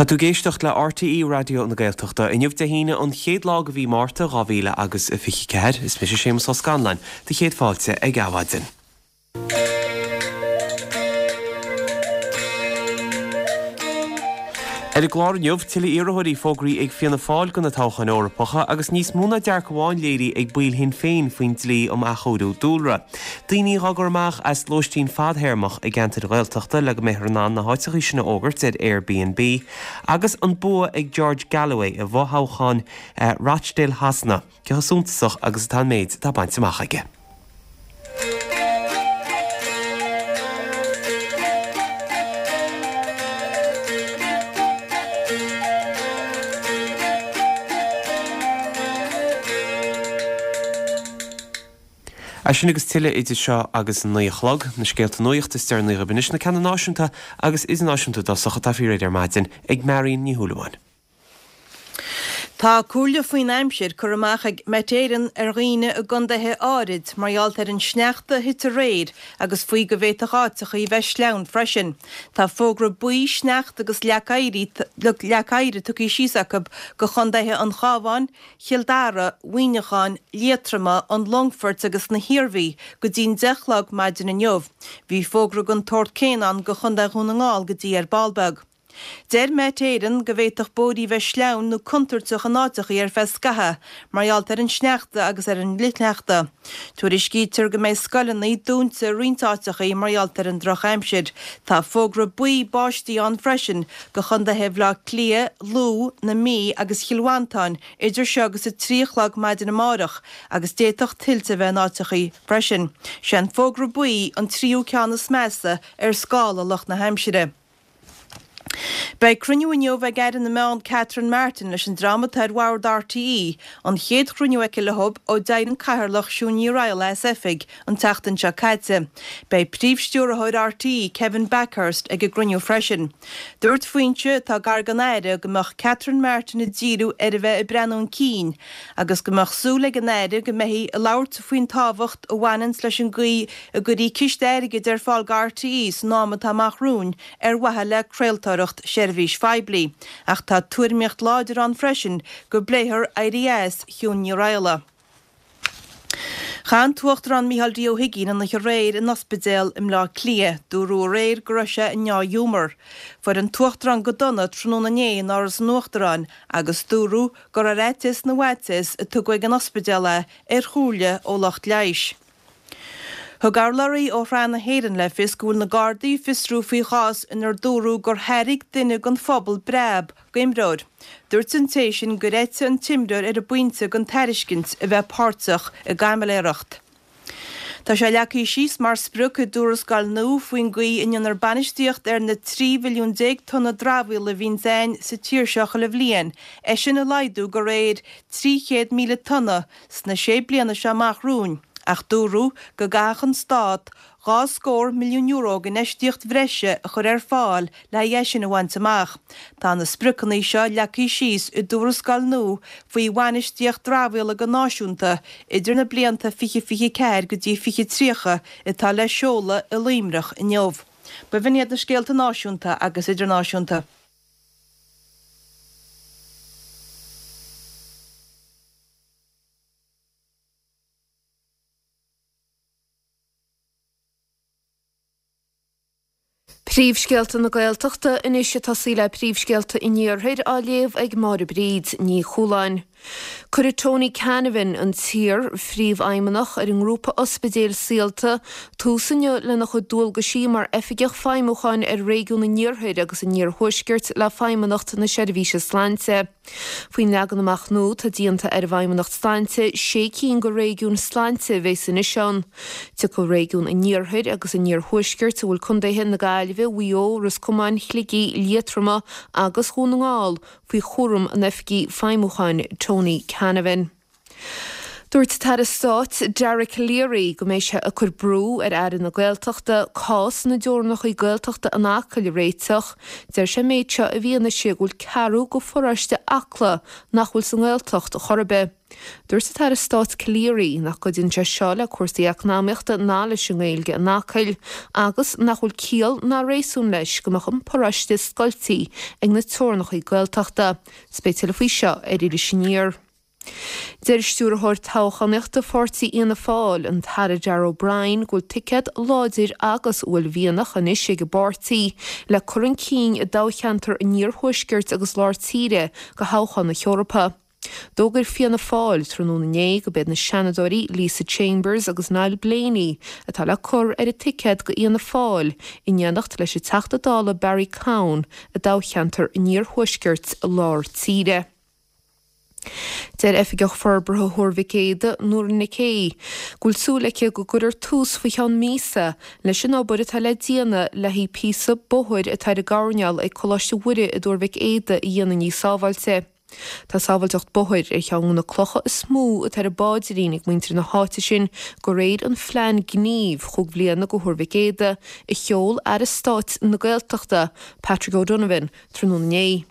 Tá tú ag éisteacht le RTÉ Raidió na Gaeltachta. Inniu Dé hAoine an chéad lá de mhí Márta 2024. Is mise Séamus Ó Scanláin, do chéad fáilte ag Adhmhaidin. Ar an gclár inniu, tuilleadh iarrthóirí fógraithe ag Fianna Fáil do na toghcháin Eorpacha agus níos mó ná dearcadh amháin léirithe ag baill Shinn Féin faoin dlí um athchóiriú dúlra. Daoine dhá gcur amach as lóistín fadthéarmach i gceantair Ghaeltachta le go mbeifear in ann na háiteachaí sin a fhógairt ar Airbnb agus an bua ag George Galloway i bhfothoghchán Rochdale Shasana, cé chomh suntasach agus atá an méid atá bainte amach aige. É sin agus tuilleadh idir seo agus a 9 a chlog, na scéalta nuachta is deireanaí agaibh anois, na ceanna náisiúnta agus idirnáisiúnta i dtosach atá faoi réir ar maidin ag Marion Ní Shúilleabháin. Tá comhairle faoin aimsir curtha amach ag Met Éireann ar dhaoine i gcontaetha áirid mar gheall ar an sneachta a thit aréir agus faoi go bhféadfadh áiteachaí bheith sleamhain freisin. Tá fógra buí sneachta agus leac oighir tugtha síos acu go chontaetha an Chabháin, Chill Dara, Mhuineacháin, Liatroma, an Longfoirt agus na hIarmhí go dtí'n 10 a chlog maidin inniu. Bhí fógra den tsórt céanna ann go Chontae Dhún na nGall go dtí ar ball beag. Deir Met Éireann go bhféadfadh bóithrí bheith sleamhain nó contúirteach in áiteachaí ar feadh scaithe mar gheall ar an sneachta agus ar an fhlichshneachta. Tuairiscítear go mbeidh scoileanna dúnta i roinnt áiteachaí mar gheall ar an drochaimsir. Tá fógra buí báistí ann freisin go chontaetha Bhaile Átha Cliath, Lú, na Mí agus Chill Mhantáin idir seo agus 3 a chlog maidin amárach agus d'fhéadfadh tuilte a bheith in áiteachaí freisin. Sé an fógra buí an tríú ceann is measa ar scála lucht na haimsire. Beidh cruinniú inniu ag Aire na Meán Catherine Martin leis an dream atá ar bhord RTÉ, an chéad chruinniú aici leo ó d'éirigh an Cathaoirleach Siún Ní Raghallaigh as oifig an tseachtain seo caite. Beidh Príomh-Stiúrthóir RTÉ Kevin Bakhurst ag an gcruinniú freisin. Dúirt foinse atá gar don Aire go mbeadh Catherine Martin ag díriú ar a bheith ag breathnú chun cinn agus go mbeadh súil ag an Aire go mbeifí ag labhairt faoin tábhacht a bhaineanns leis an gcaoi a gcuirfí ciste airgid ar fáil go RTÉ san am atá amach romhainn ar mhaithe le craoltóireacht seirbhís phoiblí, ach tá tuairimíocht láidir ann freisin go bpléifear éirí as Shiún Ní Raghallaigh. Chaith an tUachtarán Micheál D. Ó hUigínn an oíche aréir in ospidéal i mBleá Cliath. Dúradh aréir go raibh sé i ndea-ghiúmar. Fuair an tUachtarán go dona tráthnóna inné in Áras an Uachtaráin agus dúradh gur ar fhaitíos na bhfaitíos a tugadh ag an ospidéal é ar chomhairle ó lucht leighis. Thug urlabhraí ó Shraith na hÉireann le fios go bhfuil na Gardaí ag fiosrú faoi chás inar dúradh gur thairg duine den phobal breab d'imreoir. Dúirt an té sin gur eitigh an t-imreoir ar an bpointe den tairiscint a bheith páirteach i gcaimiléireacht. Tá sé leagtha síos mar sprioc i dtuarascáil nua faoin gcaoi a ndéanfar bainistíocht ar na 13 mhilliún tonna dramhaíola a bhíonns ann sa tír seo chuile bhliain, é sin a laghdú de réir 300,000 tonna sna sé bliana seo amach romhainn, ach dúradh go gcaithfeadh an Stát €2 scór milliún d'infheistíocht bhreise a chur ar fáil le haghaidh é sin a bhaint amach. Tá na spriocanna seo leagtha síos i dtuarascáil nua faoi bhainistíocht dramhaíola go náisiúnta idir na blianta 2024 go dtí 2030 atá le seoladh i Luimneach inniu. B'in iad na scéalta náisiúnta agus idirnáisiúnta. Príomhscéalta na Gaeltachta anois ag tosaí le príomhscéalta an Iarthair á léamh ag Máire Bríd Ní Chualáin. Cuirfidh Tony Canavan, an t-iar-phríomhfheidhmeannach ar an ngrúpa ospidéil Saolta, tús inniu lena chuid dualgaisí mar Oifigeach Feidhmiúcháin ar Réigiún an Iarthair agus an Iarthuaiscirt le Feidhmeannacht na Seirbhíse Sláinte. Faoin leagan amach nua, tá déanta ar an bhFeidhmeannacht Sláinte sé cinn de réigiúin sláinte a bheas anois ann. Tiocfaidh réigiún an Iarthair agus an Iarthuaiscirt, a bhfuil contaetha na Gaillimhe, Mhaigh Eo, Ros Comáin, Shligigh, Liatroma agus Dhún na nGall, faoi chúram an Oifigigh Feidhmiúcháin Tony Canavan. Dúirt an tAire Stáit Dara Calleary go mbeidh sé ag cur brú ar Aire na Gaeltachta cás na dteorainneacha Gaeltachta in Acaill a réiteach. Deir sé an méid seo i bhfianaise go bhfuil ceathrú de pharóiste Acla nach bhfuil sa nGaeltacht chor ar bith. Dúirt an tAire Stáit Calleary nach gcuidíonn sé seo le cúrsaí eacnamaíochta ná leis an nGaeilge in Acaill agus nach bhfuil ciall ná réasún leis go mbeadh an paróiste scoiltí ag na teorannachaí Gaeltachta. 'S beidh tuilleadh faoi seo ar Iris Aniar. Deir Stiúrthóir Toghchánaíochta Pháirtí Fhianna Fáil, an tAire Darragh O'Brien, go bhfuil ticéad láidir agus uaillmhianach anois ag an bpáirtí le cur chun cinn i dtoghcheantar an Iarthuaiscirt agus Lár Tíre do thoghchán na hEorpa. D'fhógair Fianna Fáil tráthnóna inné go b'iad na Seanadóirí Lisa Chambers agus Niall Blaney atá le cur ar an ticéad do Fhianna Fáil in éineacht leis an Teachta Dála Barry Cowen i dtoghcheantar an Iarthuaiscirt Lár Tíre. Deir Oifigeach Forbartha Thuar Mhic Éadaigh, Nóra Nic Aoidh, go bhfuil súil aici go gcuirfear tús faoi cheann míosa leis an obair atá le déanamh le haghaidh píosa bóthair atá ar an gcoirnéal ag Coláiste Mhuire i dTuar Mhic Éadaigh a dhéanamh níos sábháilte. Tá sábháilteacht bóthair ar cheann de na clocha is mó atá ar a bpaidrín ag muintir na háite sin de réir an phlean gnímh chúig bhliana do Thuar Mhic Éadaigh a sheol Aire Stáit na Gaeltachta, Patrick O'Donovan, tráthnóna inné.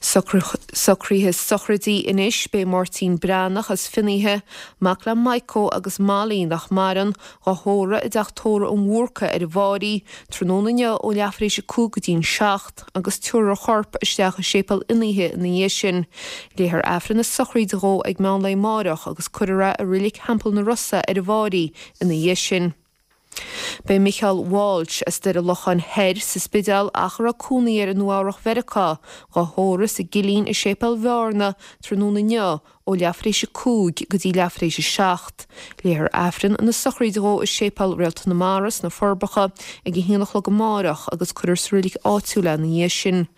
Socruithe sochraide anois, Beidh Máirtín Breathnach as Fionnaithe, mac le Maidhcó agus Molly, nach maireann, dhá thórramh i dTeach Tórraimh an Bhúrca ar an bhFáirí, tráthnóna inniu ó leathuair tar éis 5 go dtí'n 7, agus tabharfar a chorp isteach i Séipéal Fhionnaithe ina dhiaidh sin. Léifear Aifreann na sochraide dhó ag meán lae amáireach agus cuirfear é i Reilig Theampall na Rosa ar an bhFáirí ina dhiaidh sin. Beidh Micheál Walsh as Doire Locháin Thoir sa Spidéal ach a raibh cónaí air i Nua Eabhrach Mheiriceá, dhá thórramh sa gCillín i Séipéal Bhearna tráthnóna inniu ó leathuair tar éis 5 go dtí leathuair tar éis 7. Léifear Aifreann na sochraide dhó i Séipéal Réalta na Mara sna Forbacha ag a haon a chlog amáireach agus cuirfear sa reilig áitiúil é ina dhiaidh sin.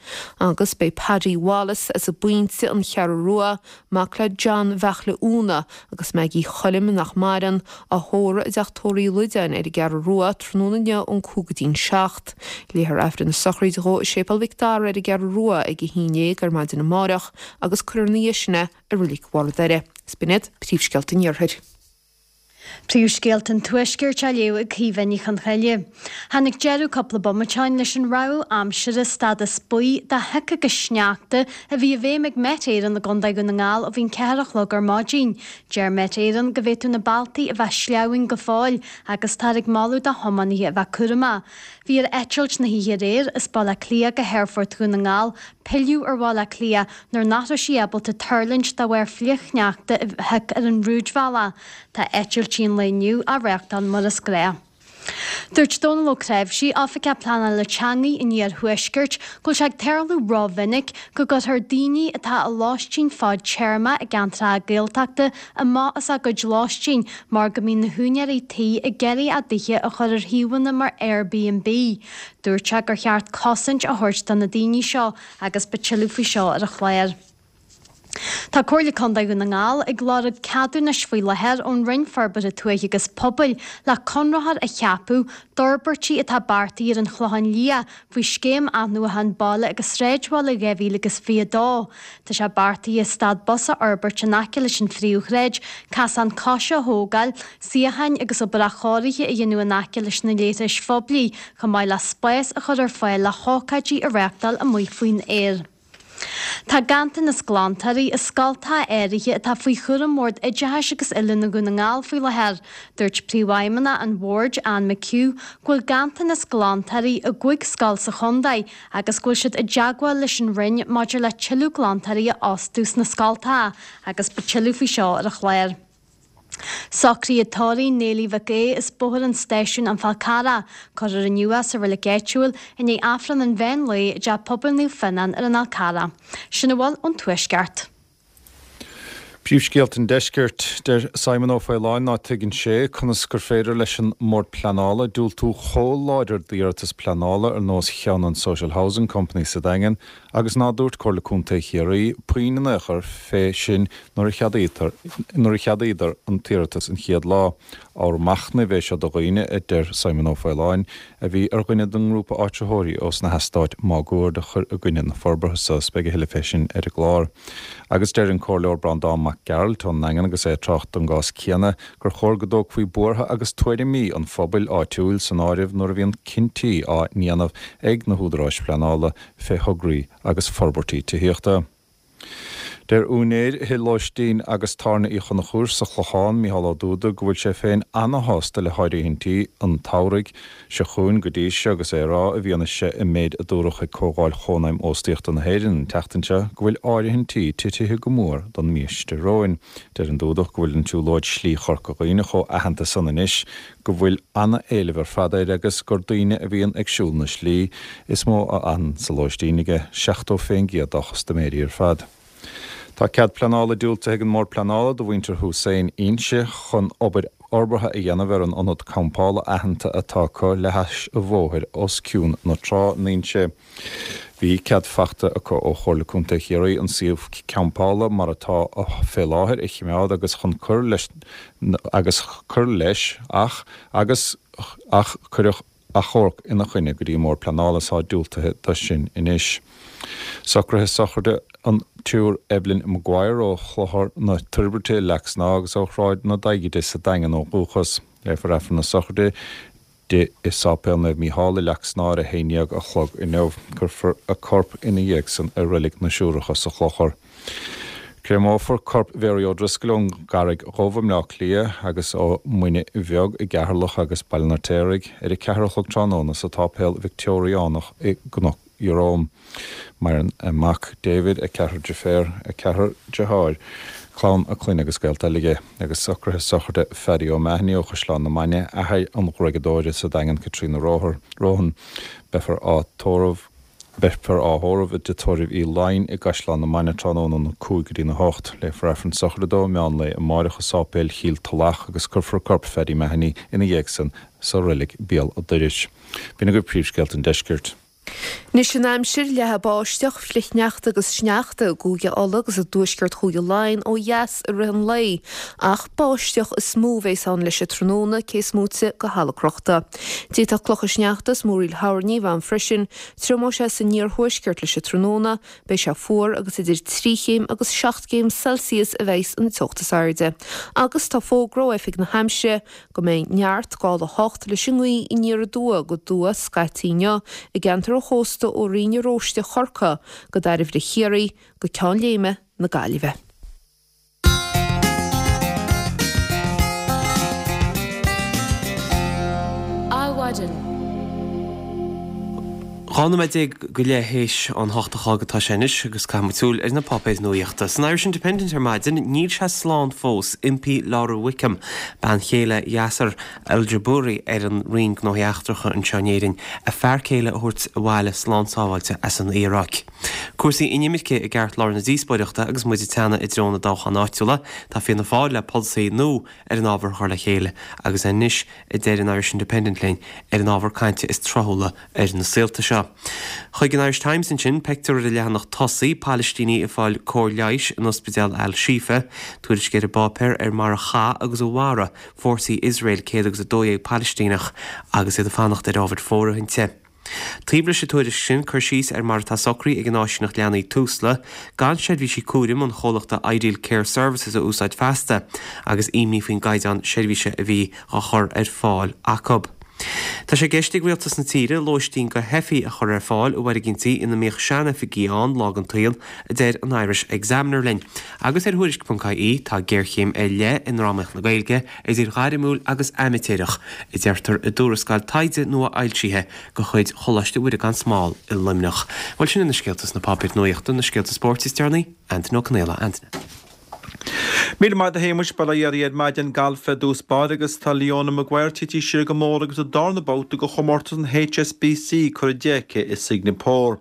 Agus beidh Paddy Wallace as an bPointe, An Cheathrú Rua, mac le John Bheartla Úna agus Maggie Choilm, nach maireann, á thórramh i dTeach Tórraimh Uí Loideáin ar an gCeathrú Rua tráthnóna inniu ón 5 go dtí'n 7. Léifear Aifreann na sochraide dhó i Séipéal Mhic Dara ar an gCeathrú Rua ag 11 ar maidin amáireach agus cuirfear ina dhiaidh sin é i Reilig Bharr an Doire. Is b'in iad príomhscéalta an Iarthair. Príomhscéalta an Tuaiscirt á léamh ag Caoimhe Ní Chonchoille. Tháinig deireadh cúpla bomaite ó shin leis an rabhadh aimsire stádas buí de shioc agus sneachta a bhí i bhfeidhm ag Met Éireann i gContae Dhún na nGall ó bhí an ceathair a chlog ar maidin. Deir Met Éireann go bhféadfadh na bealtaí a bheith sleamhain go fóill agus táthar ag moladh do thiománaithe a bheith cúramach. Bhí ar eitilt na hoíche aréir as Baile Átha Cliath go hAerfort Dhún na nGall pilleadh ar Bhaile Átha Cliath nuair nach raibh sí ábalta tuirlingt de bharr flichshneachta a thioc ar an rúidbhealach. Tá eitiltí an lae inniu á reáchtáil mar is gnách. Dúirt Dónal Ó Creabhsí, Oifigeach Pleanála Teanga an Iarthuaiscirt, go bhfuil sé ag tarlú rómhinic go gcuirtear daoine atá i lóistín fadtéarma i gceantracha Gaeltachta amach as a gcuid lóistín mar go mbíonn na húinéirí tí ag iarraidh a dtithe a chur ar shuíomhanna mar Airbnb. Dúirt sé gur cheart cosaint a thabhairt do na daoine seo agus beidh tuilleadh faoi seo ar an chlár. Tá Comhairle Contae Dhún na nGall ag lorg ceadúnais faoi láthair ón Roinn Forbartha Tuaithe agus Pobail le conraitheoir a cheapadh d'fhorbairtí atá beartaithe ar an Chlochán Liath faoi Scéim Athnuachan Baile agus Sráidbhaile 2022. Tá sé beartaithe stad bus a fhorbairt in aice leis an phríomhshráid, casán coise a thógáil, suíocháin agus obair athchóirithe a dhéanamh in aice leis na leithris phoiblí, chomh maith le spás a chur ar fáil le hócáidí a reáchtáil amuigh faoin aer. Tá ganntanas glantóirí i scoltacha áirithe atá faoi chúram Bhord Oideachais agus Oiliúna Dhún na nGall faoi láthair. Dúirt Príomhfheidhmeannach an Bhoird, Anne McHugh, go bhfuil ganntanas glantóirí i gcúig scoil sa chontae agus go bhfuil siad i dteagmháil leis an Roinn maidir le tuilleadh glantóirí a fhostú sna scoltacha agus beidh tuilleadh faoi seo ar an chlár. Socruithe tórraimh Néilí Mhic Aoidh as Bóthar an Stáisiúin An Fál Carrach, cuirfear inniu é sa reilig áitiúil i ndiaidh Aifreann an mheán lae i dTeach Pobail Naomh Fionnán ar an Fhál Carrach. Sin a bhfuil ón Tuaisceart. Príomhscéalta an Deiscirt, Deir Simon Ó Faoláin ná tuigeann sé conas gur féidir leis an mBord Pleanála diúltú chomh láidir d'iarratas pleanála ar nós cheann an Social Housing Company sa Daingean agus ná dúirt Comhairle Contae Chiarraí puinn in aon chor fé sin nuair a cheadaítear nuair a cheadaíodar an t-iarratas an chéad lá. Ábhar machnaimh é seo do dhaoine, a deir Simon Ó Faoláin, a bhí ar dhuine den ngrúpa áitritheoirí ós na heastáit máguaird a chuir i gcoinne na forbartha so. Is beidh a thuilleadh fé sin ar an gclár. Agus deir an Comhairleoir Breandán Mac Gearailt ón nDaingean agus é ag trácht don gcás céanna gur chóir go dtógfaí buartha agus tuairimí an phobail áitiúil san áireamh nuair a bhíonn cinntí á ndéanamh ag na húdaráis phleanála fé thograí agus forbairtí tithíochta. Deir úinéir thigh lóistín agus tábhairne Uí Chonchúir sa Chlochán, Mícheál Ó Dúda, go bhfuil sé féin ana-shásta le háirithintí an tsamhraidh seo chugainn go dtí seo agus é ag rá, i bhfianaise an méid a dúradh ag Comhdháil Chónaidhm Óstaíochta na hÉireann an tseachtain seo, go bhfuil áirithintí titithe go mór don mhí seo romhainn. Deir an Dúdach go bhfuil an tsiúlóid Slí Chorca Dhuibhne chomh aitheanta san anois go bhfuil ana-éileamh ar fad air agus gur daoine a bhíonn ag siúl na slí is mó a fhanann sa lóistín aige, 70% dá chustaiméirí ar fad. Tá cead pleanála diúltaithe ag an mBord Pleanála do mhuintir Hussein Inse chun obair fhorbartha a dhéanamh ar an ionad campála aitheanta atá acu le hais an bhóthair os cionn na trá in Inse. Bhí cead faighte acu ó Chomhairle Contae Chiarraí an suíomh campála mar atá fé láthair a chimeád agus chun cur leis agus cur leis ach agus ach cuireadh achomharc ina choinne go dtí an mBord Pleanála is tá diúltaithe do sin anois. Socruithe sochraide an tSiúr Evelyn Maguire ó Chlochar na Toirbhirte i Leac Snámha agus ó Shráid na Daighide sa Daingean ó dhúchas. Léifear Aifreann na sochraide di i Sáipéal Naomh Mícheál i Leac Snámha ar a 11 a chlog inniu. Cuirfear a corp ina dhiaidh san i Reilig na Siúracha sa Chlochar. Créamófar corp Mhary O'Driscoll ón gCarraig Dhubh i mBleá Cliath agus ó Mhuine Bheag i gCeatharlach agus Baile an Fheirtéaraigh ar a 4 a chlog tráthnóna sa tSáipéal Victeoiriánach i gCnoc Jerome. Maireann a mac David, a ceathrar deirféar, a ceathrar deartháir, clann a clainne agus gaolta eile aige, agus socruithe sochraide Phaddy O'Mahony ó Chaisleán na Mainge, athair an ghruaigeadóra sa Daingean Caitríona Rohan. Beifear á tórramh Beifear á thórramh i dTigh Tórraimh Uí Laighin i gCaisleán na Mainge tráthnóna óna 5 go dtína 8. Léifear Aifreann sochraide dó meán lae amáireach i Sáipéal Chill Tulach agus cuirfear corp Phaddy Mahony ina dhiaidh san sa reilig Béal a' Dorais. B'in agaibh príomhscéalta an deiscirt. Anois an aimsir, leathfaidh báisteach, flichshneachta agus sneachta i gCúige Uladh agus i dtuaisceart Chúige Laighean ó dheas i rith an lae, ach báisteach is mó a bheas ann leis an tráthnóna, cé is móite de thalamh crochta. D'fhéadfadh clocha sneachta is múraíl thoirní a bheith ann freisin. Triomóidh sé san iarthuaisceart leis an tráthnóna, beidh sé fuar agus idir 3 chéim agus 7 gcéim Celsius a bheas an teocht is airde. Agus tá fógra ó Oifig na hAimsire go mbeidh neart gála 8 leis an ngaoth aniar aduaidh go aduaidh scaití inniu i gceantar an chósta ó Rinn Oróiste Chorcaí go Dairbhre Chiarraí go Ceann Léime na Gaillimhe. Adhmhaidin. 12 nóiméad go leith théis an hocht a chlog atá sé anois agus caithfidh muid súil ar na páipéir nuaíochta. San Irish Independent ar maidin, níl sé slán fós, impí Laura Wickham, bean chéile Yasser Al-Jubouri ar an Roinn Gnóthaí Eachtracha anseo in Éirinn, a fear céile a thabhairt abhaile slán sábháilte as an Iaráic. Cúrsaí inimirce i gceartlár na díospóireachta agus muid ag teannadh i dtreo na dtoghchán áitiúla. Tá Fianna Fáil le polasaí nua ar an ábhar a chur le chéile agus anois, a deir an Irish Independent linn, ar an ábhar cainte is tráthúla ar na saolta seo. Chuig an Irish Times ansin, pictiúr ar an leathanach tosaigh, Palaistínigh ag fáil cóir leighis in ospidéal Al Shifa, tuairisc ar an bpáipéar ar mar a chaith agus a mharaigh fórsaí Iosrael 112 Palaistíneach agus iad ag fanacht ar ábhair fóirithinte. Taobh leis an tuairisc sin, cur síos ar mar atá socraithe ag an áisíneacht leanaí Tusla gan seirbhísí cúraim an chomhlachta Ideal Care Services a úsáid feasta agus imní faoin gcaighdeán seirbhíse a bhí á chur ar fáil acu. Tá sé i gceist ag rialtas na tíre lóistín do theifigh a chur ar fáil i bhfoirgintí ina mbíodh sean-oifigí ann lá den tsaol, a deir an Irish Examiner linn. Agus ar Thuairisc.ie, tá géarchéim ar leith i ndrámaíocht na Gaeilge, idir ghairmiúil agus aimitéireach, a deirtear i dtuarascáil taighde nua-fhoilsithe de chuid Choláiste Mhuire gan Smál i Luimneach. Bhuel, sin iad na scéalta sna páipéir nuaíochta, na scéalta spóirt is deireanaí, Antaine Ó Conaola. Antaine. Míle maith agat a Shéamuis, bail ó Dhia oraibh ar maidin galf ar dtús báire agus tá Leona Maguire tití siar go mór agus an darna babhta de chomórtas an HSBC curtha di aici i Singeapór.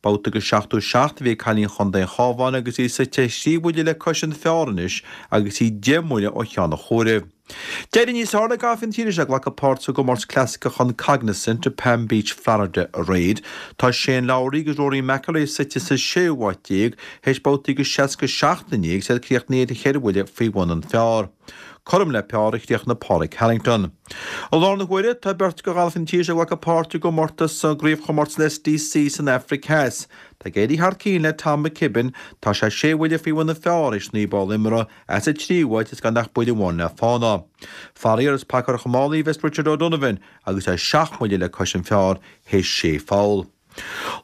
Babhta de 77 a bhí ag cailín chontae an Chabháin agus í suite thrí bhuille le cois an phar anois agus í 10 mbuille ó cheann an chomhairimh. D'éirigh níos fearr le galfaithe na tíre seo ag glacadh páirt sa gcomórtas clasaiceach an Cognizant i Palm Beach, Florida aréir. Tá Shane Lowry agus Rory McIlroy suite sa séú háit déag théis babhtaí de 67 inné agus iad críochnaithe ar cheithre bhuille faoi bhun an phar. Cothrom le par a chríochnaigh Pádraig Harrington. I láthair na huaire, tá beirt de ghalfaithe na tíre seo ag glacadh páirt i gcomórtas sa gcraobhchomórtas an SDC san Afraic Theas. Tá ag éirí thar cionn le Tom McKibbin, tá sé sé bhuille faoi bhun an phar théis 9 bpoll imeartha, é sa tríú háit is gan ach buille amháin le fána. Faraor, is paca ar chománaí a bheas Richard O'Donovan agus é seacht mbuille le cois an phar théis sé pholl.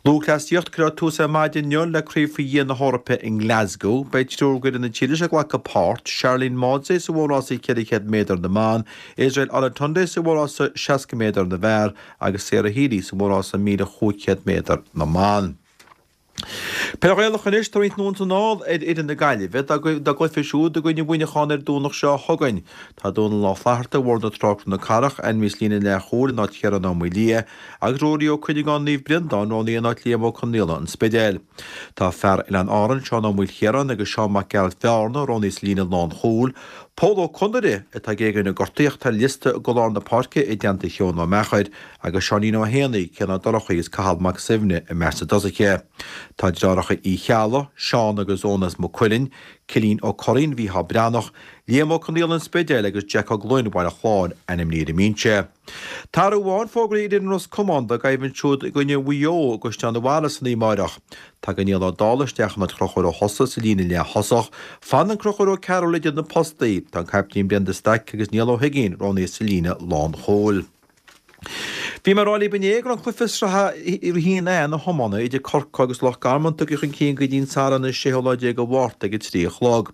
Lúthchleasaíocht, Cuirfear tús ar maidin inniu le Craobh faoi Dhéin na hEorpa i nGlasgow. Beidh triúr d'fhoireann na tíre seo ag glacadh páirt, Sharlene Mawdsley sa mhórrása 400 méadar na mban, Israel Olatunde sa mhórrása 60 méadar na bhfear agus Sarah Healy sa mhórrása 1,500 méadar na mban. Peil Ghaelach anois, tá roinnt anonn is anall ar fhoireann na Gaillimhe dá gcluiche siúd i gcoinne Mhuineacháin ar an Domhnach seo chugainn. Tá Dónal Ó Flatharta, Bhóthar na Trá Cnoc na Cathrach, ainmnithe sa líne leathchúil in áit Chiarán Ó Maoildhia agus Ruairí Ó Cuinneagáin Naomh Breandán roghnaithe in áit Liam Ó Conaola, An Spidéal. Tá fear Oileáin Árann, Seán Ó Maoilchiaráin agus Seán Mac Gearailt Bhearna roghnaithe sa líne lánchúil. Pól Ó Conaire atá ag éagaoineadh gortaíocht ar liosta go lár na páirce i dteannta Sheoin Ó Meachair agus Seáinín Ó hÉanaí, Cian Ó Dorchaí agus Cathal Mac Suibhne i measc na dtosaithe. Tá deartháireacha Uí Cheallaigh, Seán agus Eoin as Maigh Cuilinn, Cillian Ó Curraoin, Mhícheál Breathnach, Liam Ó Conaola An Spidéal agus Jack Ó Gloinn Bhaile Chláir ainmnithe ar an mbinse. Tá athrú amháin fógraithe ar fhoireann Ros Comáin dá gcoimhlint siúd i gcoinne Mhaigh Eo i gCaisleán an Bharraigh san oíche amárach. Tagann Niall Ó Dálaigh isteach in áit Chonchúir Ó hEosa sa líne leath-thosach. Fanann Conchúr Ó Cearúil idir na postaí. Tá an caiptín Brendan Stack agus Niall Ó hUiginn roghnaithe sa líne lánchúil. Bhí mé ag rá libh inné go raibh an cluiche sraithe 1A na hiomána idir Corcaigh agus Loch Garman tugtha chun cinn go dtí an Satharn an séú lá déag de Mhárta ag a 3 a chlog.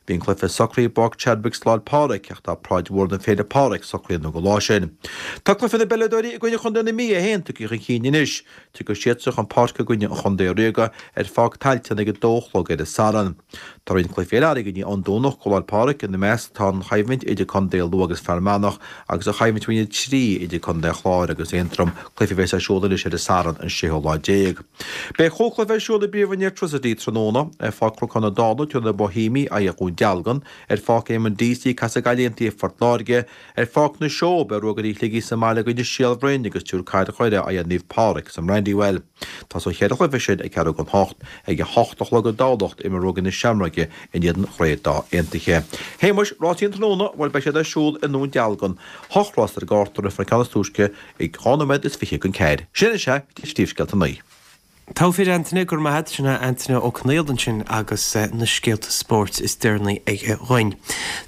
Bhí an cluiche socraithe i bPáirc Chadwick sa Lá 'le Pádraig ach tá paráid mhór don Féile Pádraig socraithe anonn don lá sin. Tá cluiche na bpeileadóirí i gcoinne Chontae na Mí é féin tugtha chun cinn anois. Tiocfaidh siadsan chun páirce i gcoinne an Chontae Ríoga ar Pháirc Tailteann ag a dó a chlog ar an Satharn. Tá roinnt cluichí eile airgead an Domhnach go Lá 'le Pádraig, ina measc tá an choimhlint idir Contae Lú agus Fear Manach agus an choimhlint Roinn 3 idir Contae an Chláir agus Aontroim, cluiche a bheas ar siúl anois ar an Satharn an séú lá déag. Beidh chúig chluiche ar siúl i bPríomhroinn Airtricity tráthnóna, ar Pháirc Chnocán na Dála tabharfaidh na Boihéamaigh aghaidh ar Dhún Dealgan, ar Pháirc Éamonn Deasy casfaidh Gaillimh Aontaithe Phort Láirge, Ar Pháirc na Seó, beidh Ruagairí Shligigh sa mbaile i gcoinne Shíol Bhroin agus tabharfaidh Cathair Dhoire aghaidh ar Naomh Pádraig sa mBrandywell. Tosóidh an cheithre chluiche sin ag ceathrú don hocht. Ag a hocht a chlog i dTamhlacht, imreoidh Ruagairí na Seamróige in éadan Chraobh Dá Aontaithe. Shéamuis, rásaí an tráthnóna, bhuel beidh siad ar siúl i nDún Dealgan. Hocht rás ar an gcárta, rithfear an ceann is túisce ag 2 nóiméad is 20 don ceathair. Sin anois é, Príomhscéalta an lae. Togha fir Antaine, go raibh maith agat. Sin é Antaine Ó Conaola ansin agus na scéalta spóirt is deireanaí aige dhuinn.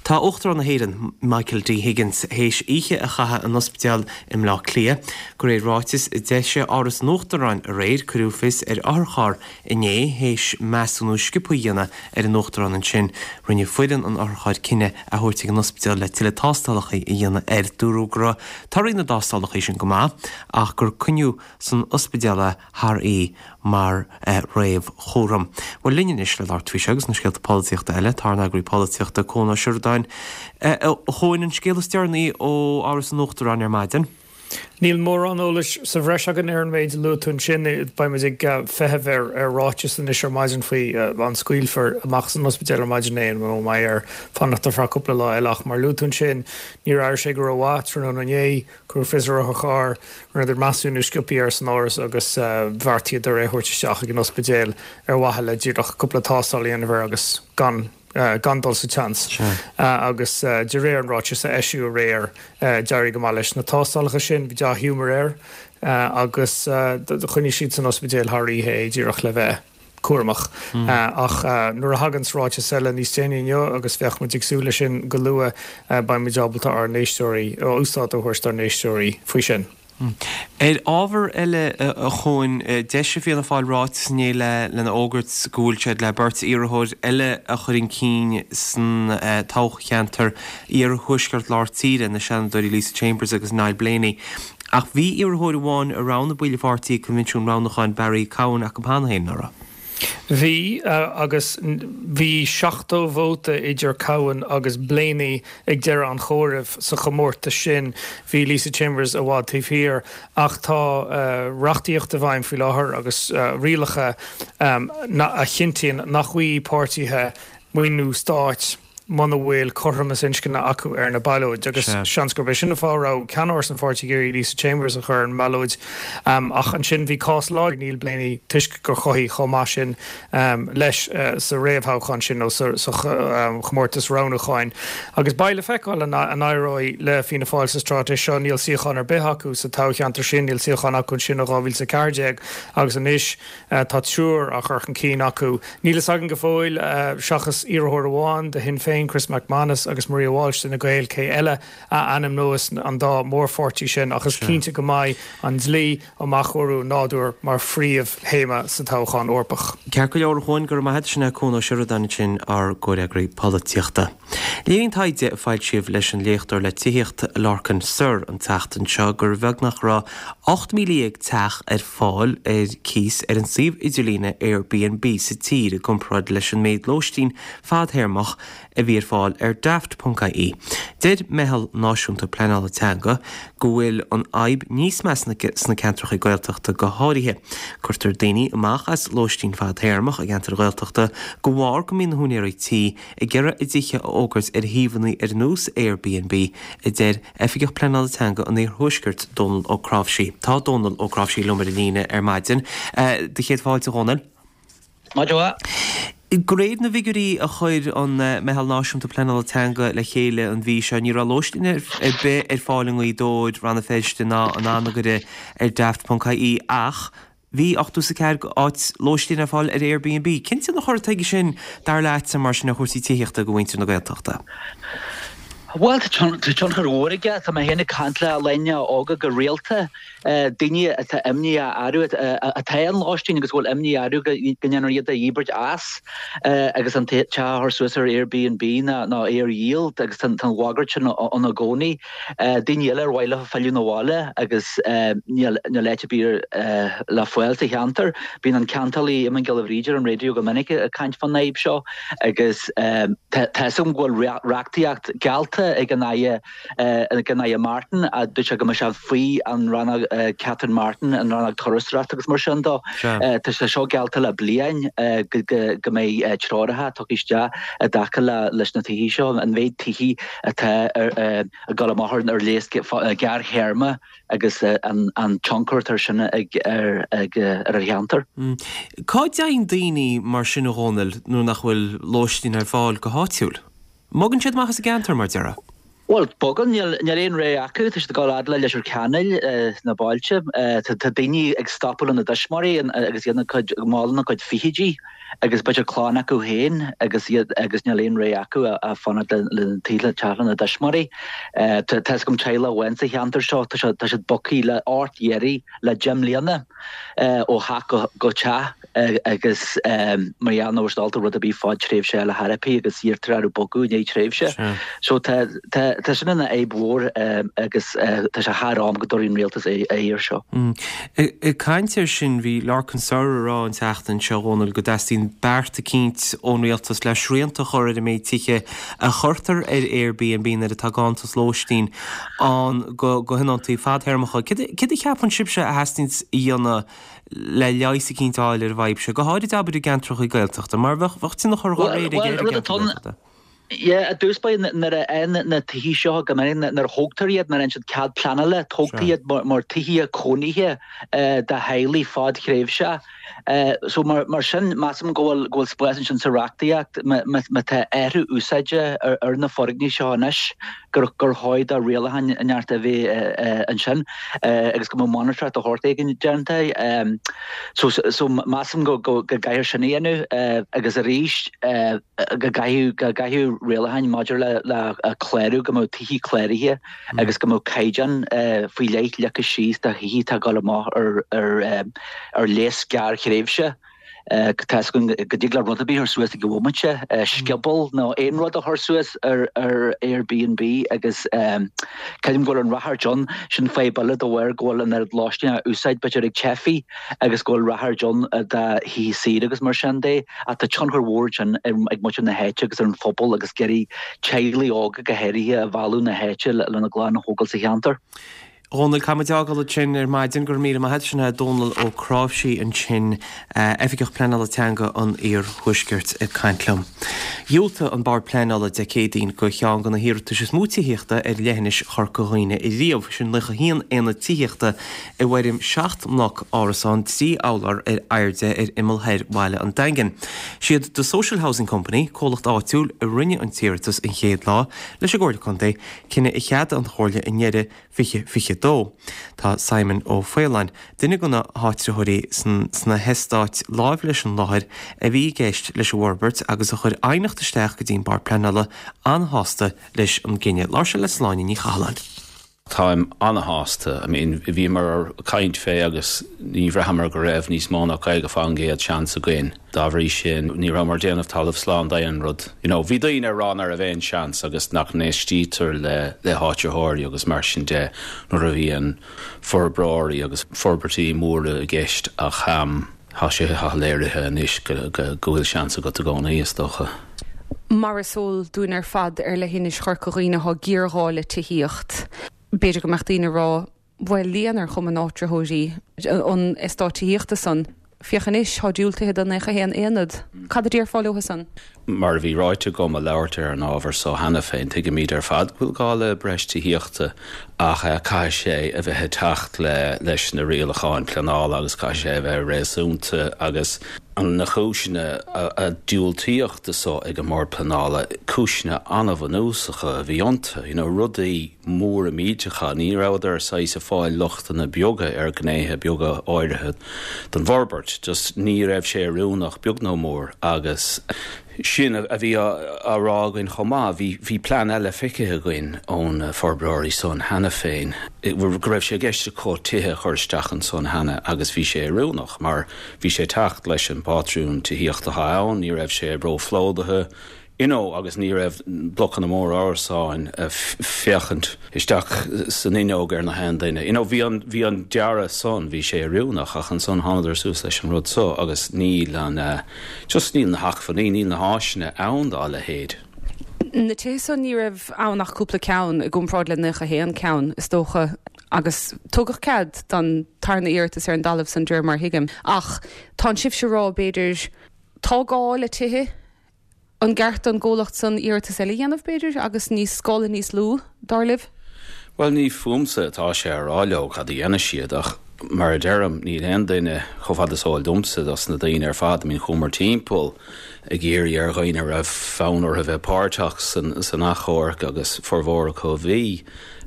Tá Uachtarán na hÉireann, Michael D Higgins, théis oíche a chaitheamh in ospidéal i mBleá Cliath. De réir ráitis a d'eisigh Áras an Uachtaráin aréir, cuireadh fios ar otharcharr inné théis measúnú sciobtha a dhéanamh ar an Uachtarán ansin. Rinne foireann an otharchairr cinneadh é a thabhairt ag an ospidéal le tuilleadh tástálacha a dhéanamh air. Dúradh go raibh torthaí na dtástálacha sin go maith ach gur coinníodh san ospidéal é thar oíche mar réamhchúram. Bhuel, linn anois le labhairt faoi seo agus na scéalta polaitíochta eile, tá ár n-eagraí polaitíochta, Cuan Ó Seireadáin. A Chuain, an scéal is deireanaí ó Áras an Uachtaráin ar maidin? Níl mórán eolais sa bhreis againn ar an méid a luaigh tú ansin. Beidh muid ag feitheamh ar ráiteas anois ar maidin faoi an scaoilfear amach as an ospidéal ar maidin é nó an mbeidh air fanacht ar feadh cúpla lá eile. Ach mar a luaigh tú ansin, níor airigh sé go rómhaith tráthnóna inné. Cuireadh fios ar otharcharr, rinneadar measúnú sciobtha air san áras agus bheartaíodar é a thabhairt isteach ag an ospidéal ar mhaithe le díreach cúpla tástáil a dhéanamh air agus gan gan dul sa tseans. Agus de réir an ráitis a eisíodh aréir, d'éirigh go maith leis na tástálacha sin, bhí dea-ghiúmar air agus choinnigh siad san ospidéal thar oíche é díreach le bheith cúramach. Ach nuair a thaganns ráiteas eile níos déanaí inniu, agus bheadh muid ag súil leis sin go luath, beidh muid ábalta ár n-éisteoirí, úsáid a thabhairt dár n-éisteoirí faoi sin. Ar ábhar eile, a Chuain, d'eisigh Fianna Fáil ráiteas inné lena fhógairt go bhfuil siad le beirt iarrthóir eile a chur chun cinn san toghcheantar iarthuaisceart lár tíre, na Seanadóirí Lisa Chambers agus Niall Blaney. Ach bhí iarrthóir amháin a roghnaigh baill an pháirtí ag coinbhinsiún roghnúcháin Barry Cowen acu cheana féin, ná raibh? Bhí, agus bhí 70 vóta idir Cowen agus Blaney ag deireadh an chomhairimh sa chomórtas sin. Bhí Lisa Chambers i bhfad taobh thiar ach tá reachtaíocht i bhfeidhm faoi láthair agus rialacha a chinntíonn nach bhfaighidh páirtithe maoiniú stáit muna bhfuil cothromas inscne acu ar na ballóid agus seans gurb é sin an fáth a raibh ceannáras an pháirtí ag iarraidh Lisa Chambers a chur ar an mballóid. Ach ansin bhí cás láidir ag Niall Blaney toisc gur chothaigh chomh maith sin leis sa réamhthoghchán sin nó sa chomórtas roghnúcháin. Agus beidh le feiceáil an éireoidh le Fianna Fáil sa straitéis seo. Níl suíochán ar bith acu sa toghcheantar sin, níl suíochán acu ansin ó 2014 agus anois Tá triúr á chur chun cinn acu. Níl fhios againn go fóill, seachas iarrthóir amháin do Shinn Féin. Féin, Chris MacManus agus Maria Walsh d'Fhine Gael, cé eile a ainmneos an dá mhórpháirtí sin ach is cinnte go mbeidh an dlí um athchóiriú nádúir mar phríomhthéama sa toghchán Eorpach. Ceart go leor a Chuain, go raibh maith agat. Sin é Cuan Ó Seireadáin ansin, ár gcomhfhreagraí polaitíochta. Léiríonn taighde a foilsíodh leis an léachtóir le tithíocht Lorcan Sirr an tseachtain seo gur bheag nach raibh 18,000 teach ar fáil ar cíos ar an suíomh idirlíne Airbnb sa tír i gcomparáid leis an méid lóistín fadthéarmach a bhí ar fáil ar Daft.ie. Deir Meitheal Náisiúnta Pleanála Teanga go bhfuil an fhadhb níos measa sna ceantracha Gaeltachta go háirithe. Cuirtear daoine amach as lóistín fadthéarmach i gceantair Ghaeltachta de bharr go mbíonn na húinéirí tí ag iarraidh a dtithe a fhógairt ar shuíomhanna ar nós Airbnb, a deir Oifigeach Pleanála Teanga an Iarthuaiscirt, Dónal Ó Cnáimhsí. Tá Dónal Ó Cnáimhsí liom ar an líne ar maidin. Do chéad fáilte, a Dhónaill. Maidin mhaith. De réir na bhfigiúirí a chuir an Meitheal Náisiúnta Pleanála Teanga le chéile an mhí seo, ní raibh lóistín ar bith ar fáil i nGaoth Dobhair, Rann na Feirste ná in Anagaire ar Daft.ie ach bhí 84 áit lóistín ar fáil ar Airbnb. Cén tionchar atá aige sin, dar leatsa, mar sin, ar chúrsaí tithíochta do mhuintir na Gaeltachta? Bhuel, tá tionchar mhór aige. Tá mé féin ag caint le daoine óga go rialta. daoine atá imní orthu, atá i lóistín agus go bhfuil imní orthu go ndéanfar iad a dhíbirt as agus an teach a chur suas ar Airbnb nó é a dhíol agus tá an bhagairt sin ann i gcónaí. Daoine eile ar mhaith leo filleadh 'na bhaile agus níl áit ar bith le fáil sa cheantar. Bíonn an ceantálaí Eamon Giolla Bhríde ar an raidió go minic ag caint fán fhadhb seo agus tá fhios agam go bhfuil reachtaíocht geallta ag an Aire ag an Aire Martin, a dúirt sé go mbeadh sé faoi an rannóg Catherine Martin, an rannóg turasóireachta agus mar sin dó. Tá sé seo geallta le bliain go mbeidh treoracha tugtha isteach i dtaca leis na tithí seo, an mhéid tithí atá ag dul amach ar léas gearrthéarma agus an tionchar atá sin ag ar an cheantar. Cá dtéann daoine mar sin a Dhónaill nuair nach bhfuil lóistín ar fáil go háitiúil? Mbogann siad amach as an gceantar, mar déarfá? Bhuel, bogann. Níl aon rogha acu. Tá siad ag dul fhad le Leitir Ceanainn sna bailte. Tá daoine ag stopadh lena dtuismitheoirí agus iad ina gcuid, mall ina gcuid fichidí agus b'fhéidir clann acu féin agus iad agus níl aon rogha acu ach fanacht le teach lena dtuismitheoirí. Tá fhios agam teaghlach amháin sa cheantar seo, tá siad bogtha le ort iarraidh le 10 mbliana ó theach go teach. agus mar gheall nach bhfuil siad ábalta rud ar bith fadtréimhse a fháil ar chor ar bith agus iarrtar orthu bogadh i ndiaidh tréimhse. So tá tá sin ina fhadhb mhór agus tá sé thar am go dtabharfaidh an rialtas aghaidh air seo. Ag caint air sin, bhí Lorcan Sirr ag rá an tseachtain seo, a Dhónaill, go dteastaíonn beart eicínt ón rialtas le srianta a chur ar an méid tithe a chuirtear ar Airbnb nuair atá ganntanas lóistín ann do thionóntaí fadthéarmacha. Céard a cheapann sibhse a theastaíonn a dhéanamh le leigheas eicínt a fháil ar an bhfadhb seo, go háirid abair i gceantracha Gaeltachta, mar bheadh bheadh tionchar dá réir aige ar an gceantar Gaeltachta. Yeah, i dtús báire nuair a fhaigheann na tithí seo go minic, nuair a thógtar iad, nuair a fhaigheann siad cead pleanála, tógtar iad mar tithithe cónaithe do theaghlaigh fadthréimhseach. So mar sin, measaim go bhfuil go bhfuil spás ansin sa reachtaíocht má tá athrú úsáide ar na foirgnimh seo anois, gur gur chóir do rialacháin inteacht a bheith ansin agus go mbeadh monatóireacht de shórt éigin déanta. So so measaim go go gcaithfear sin a dhéanamh agus arís go gcaithfidh go gcaithfidh rialacháin maidir le le clárú go mbeadh tithí cláraithe agus go mbeadh caighdeán faoi leith leagtha síos do thithí atá ag dul amach ar ar ar léas gearrthréimhse. Tá fhios againn go dtig le rud ar bith a chur suas ag an bhomaite, scioból nó aon rud a chur suas ar Airbnb agus creidim go bhfuil an ráchairt ann, sin fadhb eile de bharr go bhfuil an oiread lóistín á úsáid b'fhéidir ag teifigh agus go bhfuil ráchairt ann do thithe saoire agus mar sin de ach tá tionchar mhór ansin ag muintir na háite agus ar an phobal agus ag iarraidh teaghlaigh óga go háirithe a mhealladh na háite lena gclann a thógáil sa cheantar. A Dhónaill, caithfidh muid fhágáil ansin ar maidin. Go raibh míle maith agat. Sin é Dónal Ó Cnáimhsí ansin, Oifigeach Pleanála Teanga an Iarthuaiscirt ag caint liom. Dhiúltaigh an Bord Pleanála Dé Céadaoin do cheann de na hiarratais is mó tithíochta ar leithinis Chorca Dhuibhne ariamh, sin 91 aonad tithíochta i bhfoirm 7 mbloc árasán 3 urlár ar airde ar imeall thoir bhaile an Daingin. Siad The Social Housing Company, comhlacht áitiúil, a rinne an t-iarratas an chéad lá leis an gComhairle Contae, cinneadh a cheadaigh an Chomhairle i ndeireadh 2022. 2022. Tá Simon Ó Faoláin, duine de na háitritheoirí sna heastáit láimh leis an láthair a bhí i gceist leis an bhforbairt agus a chuir aighneacht isteach go dtí an Bord Pleanála, an-shásta leis an gcinneadh. Labhair sé le Sláine Ní Chathalláin. Táim ana-shásta. I mean, bhíomar ag caint fé agus ní bhraitheamar go raibh níos mó ná 50% seans againn. Dá bhrí sin, ní rabhamar ag déanamh talamh slán d'aon rud. You know, bhí daoine ag rá nach raibh aon seans agus nach n-éistítear le le háitritheoirí agus mar sin de nuair a bhíonn forbróirí agus forbairtí móra i gceist ach tá sé léirithe anois go go bhfuil seans agat i gcónaí, is dócha. Mar is eol dúinn ar fad ar leithinis Chorca Dhuibhne tá géarghá le tithíocht. B'fhéidir go mbeadh daoine ag rá, bhuel, líon ar Chumann Áitritheoirí an eastáit tithíochta san. Féach anois, tá diúltaithe do 91 aonad. Cad a déarfá leo san? Mar a bhí ráite agam ag labhairt ar an ábhar so cheana féin, tuigimid ar fad go bhfuil gá le breis tithíochta ach caithfidh sé a bheith ag teacht leis na rialacháin pleanála agus caithfidh sé a bheith réasúnta agus na cúiseanna a diúltaíodh do so ag an mBord Pleanála, cúiseanna an-bhunúsacha a bhí iontu, you know, rudaí móra millteacha, ní rabhadar saghas ag fáil lochtanna beaga ar ghnéithe beaga áirithe den bhforbairt, just ní raibh sé oiriúnach beag nó mór agus sin a bhí á rá againn chomh maith, bhí, bhí plean eile feicthe againn ó na forbróirí san cheana féin, go raibh sé i gceist acu tithe a chur isteach ansan cheana agus bhí sé oiriúnach mar Bhí sé ag teacht leis an bpátrún tithíochta atá ann, ní raibh sé róphlódaithe, you know agus ní raibh blocanna móra árasáin ag féachaint isteach san fhuinneog ar na haon duine. You know bhí an, bhí an dearadh san, bhí sé oiriúnach ach ansan thánadar suas leis an rud so agus níl an, just níl na hacmhainní, níl na háiseanna ann dá leithéid. Na tithe san ní raibh ann ach cúpla ceann i gcomparáid le 91 ceann, is dócha. Agus tugadh cead don tarna iarratas ar an dtalamh san, de réir mar a thuigim. Ach tánn sibhse ag rá, b'fhéidir, tá gá le tithe, an gceart don gcomhlacht san iarratas eile a dhéanamh, b'fhéidir, agus níos, scála níos lú, dar libh? Bhuel, ní fúmsa atá sé a rá leo cad a dhéanfaidh siad, ach mar a deirim, níl aon duine, chomh fada is eol domsa, dos na daoine ar fad, I mean, chuamar timpeall ag iarraidh ar dhaoine a raibh fonn orthu bheith páirteach san achomharc agus formhór acu a bhí.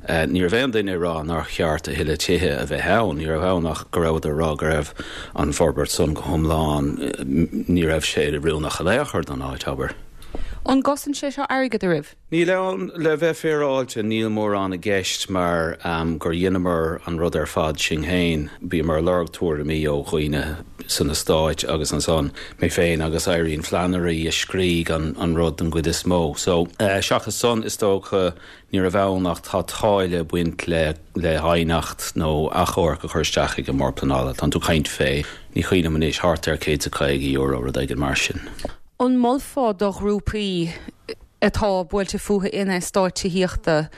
Ní raibh aon duine ag rá nár cheart a thuilleadh tithe a bheith ann. Ní raibh ann ach go rabhadar ag rá go raibh an forbairt san go hiomlán, ní raibh sé oiriúnach in aon chor don áit, abair. An gcosain sé seo airgead oraibh? Níl ann, le bheith féaráilte, níl mórán i gceist mar gur dheineamar an rud ar fad sinn féin. Bhíomar ag lorg tuairimí ó dhaoine san eastáit agus ansan mé féin agus Irene Flannery a scrígh an rud den gcuid is mó. So, seachas san, is dócha, Ní raibh ann ach tá táille ag baint le le haighneacht nó achomharc a chur isteach ag an mBord Pleanála. Tánn tú ag caint fé, ní cuimhin liom anois, thart ar €150, rud éigin mar sin. An molfá do ghrúpaí atá buailte fúthu in eastáit tithíochta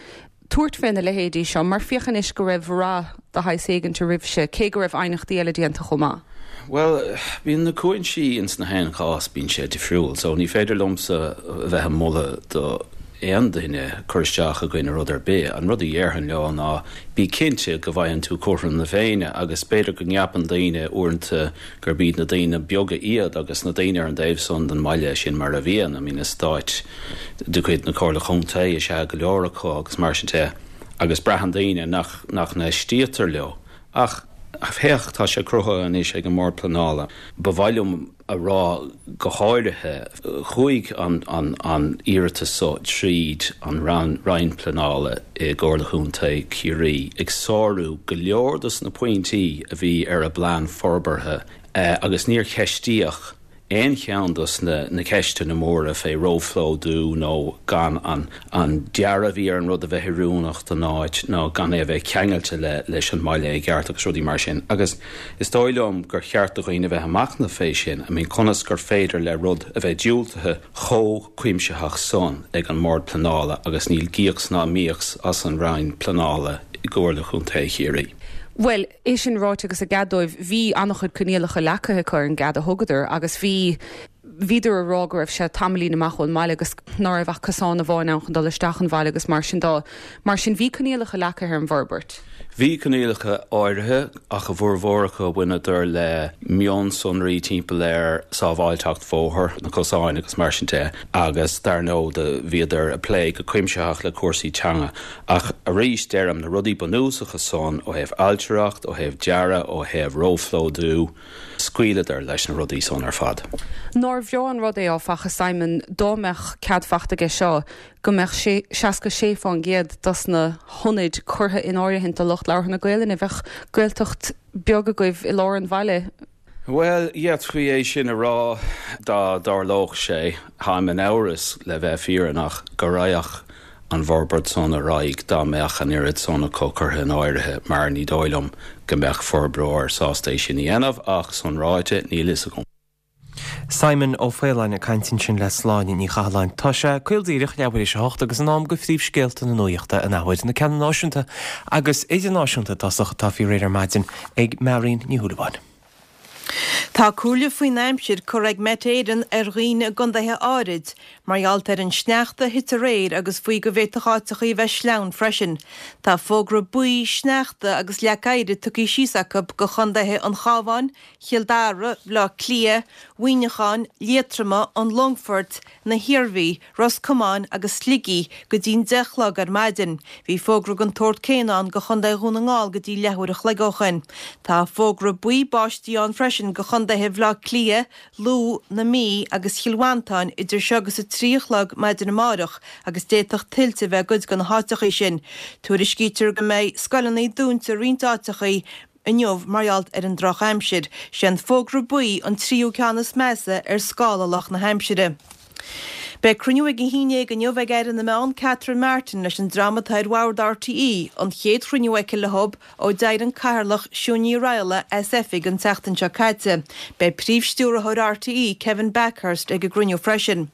tabhairt fé na leithéidí seo mar féach anois go raibh rath de shaghas éigint oraibhse, cé go raibh aighneachtaí eile déanta chomh maith? Bhuel, bíonn na cúinsí ins na haon chás, bíonn sé difriúil. So ní féidir liomsa a bheith ag moladh do aon duine cur isteach i gcoinne rud ar bith. An rud a dhéarfainn leo ná bí cinnte go bhfaigheann tú cothrom na Féinne agus b'fhéidir go gceapann daoine uaireanta gurb iad na daoine beaga iad agus na daoine ar an dtaobh san den mbaile, sin mar a bhíonn, I mean eastáit de chuid na Comhairle Contae is ea go leor acu agus mar sin de agus braitheann daoine nach nach n-éistítear leo. Ach féach, tá sé cruthaithe anois ag an mBord Pleanála. Ba mhaith liom a rá go háirithe, chuaigh an iarratas so tríd an Roinn Pleanála i gComhairle Chontae Chiarraí, ag sárú go leor dos na pointí a bhí ar a bplean forbartha agus níor ceistíodh aon cheann dos na ceisteanna móra fé róphlódú nó gan an dearadh a bhí ar an rud a bheith oiriúnach don áit nó gan é a bheith ceangailte leis an mbaile i gceart agus rudaí mar sin. Agus is dóigh liom gur cheart do dhaoine a bheith ag machnamh fé sin, I mean conas gur féidir le rud a bheith diúltaithe chomh cuimsitheach san ag an mBord Pleanála agus níl gíocs ná míocs as an Roinn Pleanála i gComhairle Chontae Chiarraí. Bhuel, é sin ráite agus a gcead dóibh, bhí an-chuid coinníollacha leagtha acu ar an gcead a thugadar agus bhí. Bhíodar ag rá go raibh sé tamaillín amach ón mbaile agus ná raibh ach cosán amháin ann chun dul isteach an bhaile agus mar sin de. Mar sin bhí coinníollacha leagtha ar an bhforbairt. Bhí coinníollacha áirithe ach a bhformhór acu bhaineadar le mionsonraí timpeall ar sábháilteacht bhóthair, na cosáin agus mar sin de agus dar ndóigh do bhíodar ag plé go cuimsitheach le cúrsaí teanga. Ach arís deirim, na rudaí bunúsacha san ó thaobh ailtireacht, ó thaobh dearadh, ó thaobh róphlódú, scaoileadar leis na rudaí san ar fad. Nár bhreá an rud é, áfach, a Simon, dá mbeadh cead fachta aige seo go mbeadh 66% dos na hionaid curtha in áirithint do lucht labhartha na Gaelainne. Bheadh Gaeltacht beag agaibh i lár an bhaile. Bhuel, d'fhéadfaí é sin a rá dá dtarlódh sé. Táim in amhras, le bheith fírinneach, go raghadh an bhforbairt san ar aghaidh dá mbeadh an oiread san acu curtha in áirithe mar ní dóigh liom go mbeadh forbróir sásta é sin a dhéanamh ach, san ráite, níl fhios agam. Simon Ó Faoláin ag caint ansin le Sláine Ní Chathalláin. Tá sé caol díreach leathuair tar éis a hocht agus in am do phríomhscéalta na nuachta an athuair, na ceanna náisiúnta agus idirnáisiúnta i dtosach atá faoi réir ar maidin ag Marion Ní Shúilleabháin. Tá comhairle faoin aimsir curtha ag Met Éireann ar dhaoine i gcontaetha áirid mar gheall ar an sneachta a thit aréir agus faoi go bhféadfadh áiteachaí a bheith sleamhain freisin. Tá fógra buí sneachta agus leac oighir tugtha síos acu go chontaetha an Chabháin, Chill Dara, Bhaile Átha Cliath, Mhuineacháin, Liatroma, an Longfoirt, na hIarmhí, Ros Comáin agus Shligigh go dtí'n 10 a chlog ar maidin. Bhí fógra den tsórt céanna ann go Chontae Dhún na nGall go dtí leathuair a chloig ó shoin. Tá fógra buí báistí ann freisin go chontaetha Bhaile Átha Cliath, Lú, na Mí agus Chill Mhantáin idir seo agus 3 a chlog maidin amáireach agus d'fhéadfadh tuilte a bheith i gcuid de na háiteachaí sin. Tuairiscítear go mbeidh scoileanna dúnta i roinnt áiteachaí inniu mar gheall ar an drochaimsir. Sé an fógra buí an tríú ceann is measa ar scála lucht na haimsire. Beidh cruinniú ag a haon dhéag inniu ag Aire na Meán Catherine Martin leis an dream atá ar bhord RTÉ, an chéad chruinniú aici leo ó d'éirigh an Cathaoirleach Siún Ní Raghallaigh as oifig an tseachtain seo caite. Beidh Príomh-Stiúrthóir RTÉ Kevin Bakhurst ag an gcruinniú freisin.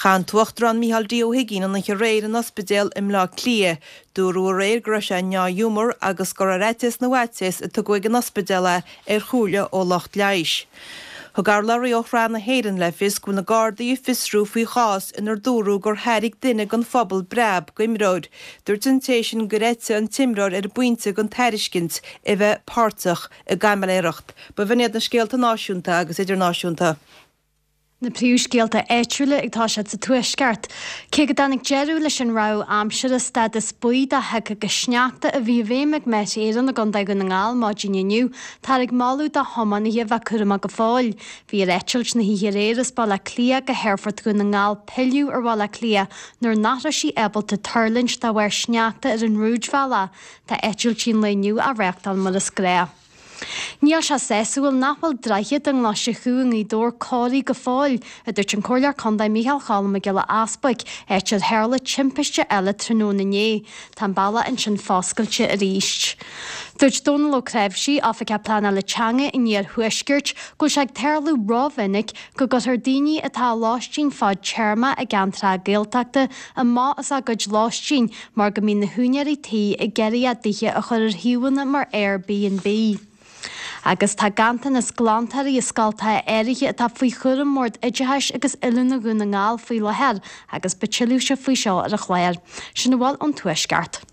Chaith an tUachtarán Micheál D. Ó hUigínn an oíche aréir in ospidéal i mBleá Cliath. Dúradh aréir go raibh sé i ndea-ghiúmar agus gur ar fhaitíos na bhfaitíos a tugadh ag an ospidéal é ar chomhairle ó lucht leighis. Thug urlabhraí ó Shraith na hÉireann le fios go bhfuil na Gardaí ag fiosrú faoi chás inar dúradh gur thairg duine den phobal breab d'imreoir. Dúirt an té sin gur eitigh an t-imreoir ar an bpointe den tairiscint a bheith páirteach i gcaimiléireacht. B'in iad na scéalta náisiúnta agus idirnáisiúnta. Na príomhscéalta áitiúla ag toiseacht sa Tuaisceart. Cé go dtáinig deireadh leis an rabhadh aimsire stádas buí de shioc agus sneachta a bhí i bhfeidhm ag Met Éireann i gContae Dhún na nGall maidin inniu, táthar ag moladh do thiománaithe bheith cúramach go fóill. Bhí ar eitilt na hoíche aréir as Baile Átha Cliath go hAerfort Dhún na nGall pilleadh ar Bhaile Átha Cliath nuair nach raibh sí ábalta tuirlingt de bharr sneachta ar an rúidbhealach. Tá eitiltí an lae inniu á reáchtáil mar is gnách. Níl sé sásúil nach bhfuil droichead i nGlaise Chú i nGaoth Dobhair cóirithe go fóill, a dúirt an Comhairleoir Contae Micheál Cholm Mac Giolla Easbuic, áit ar tharla timpiste eile tráthnóna inné. Tá an bealach ansin foscailte arís. Dúirt Dónal Ó Cnáimhsí, Oifigeach Pleanála Teanga an Iarthuaiscirt, go bhfuil sé ag tarlú rómhinic go gcuirtear daoine atá i lóistín fadtéarma i gceantracha Gaeltachta amach as a gcuid lóistín mar go mbíonn na húinéirí tí ag iarraidh a dtithe a chur ar shuíomhanna mar Airbnb. Agus tá ganntanas glantóirí i scoltacha áirithe atá faoi chúram Bhord Oideachais agus Oiliúna Dhún na nGall faoi láthair agus beidh tuilleadh faoi seo ar an chlár. Sin a bhfuil ón Tuaisceart.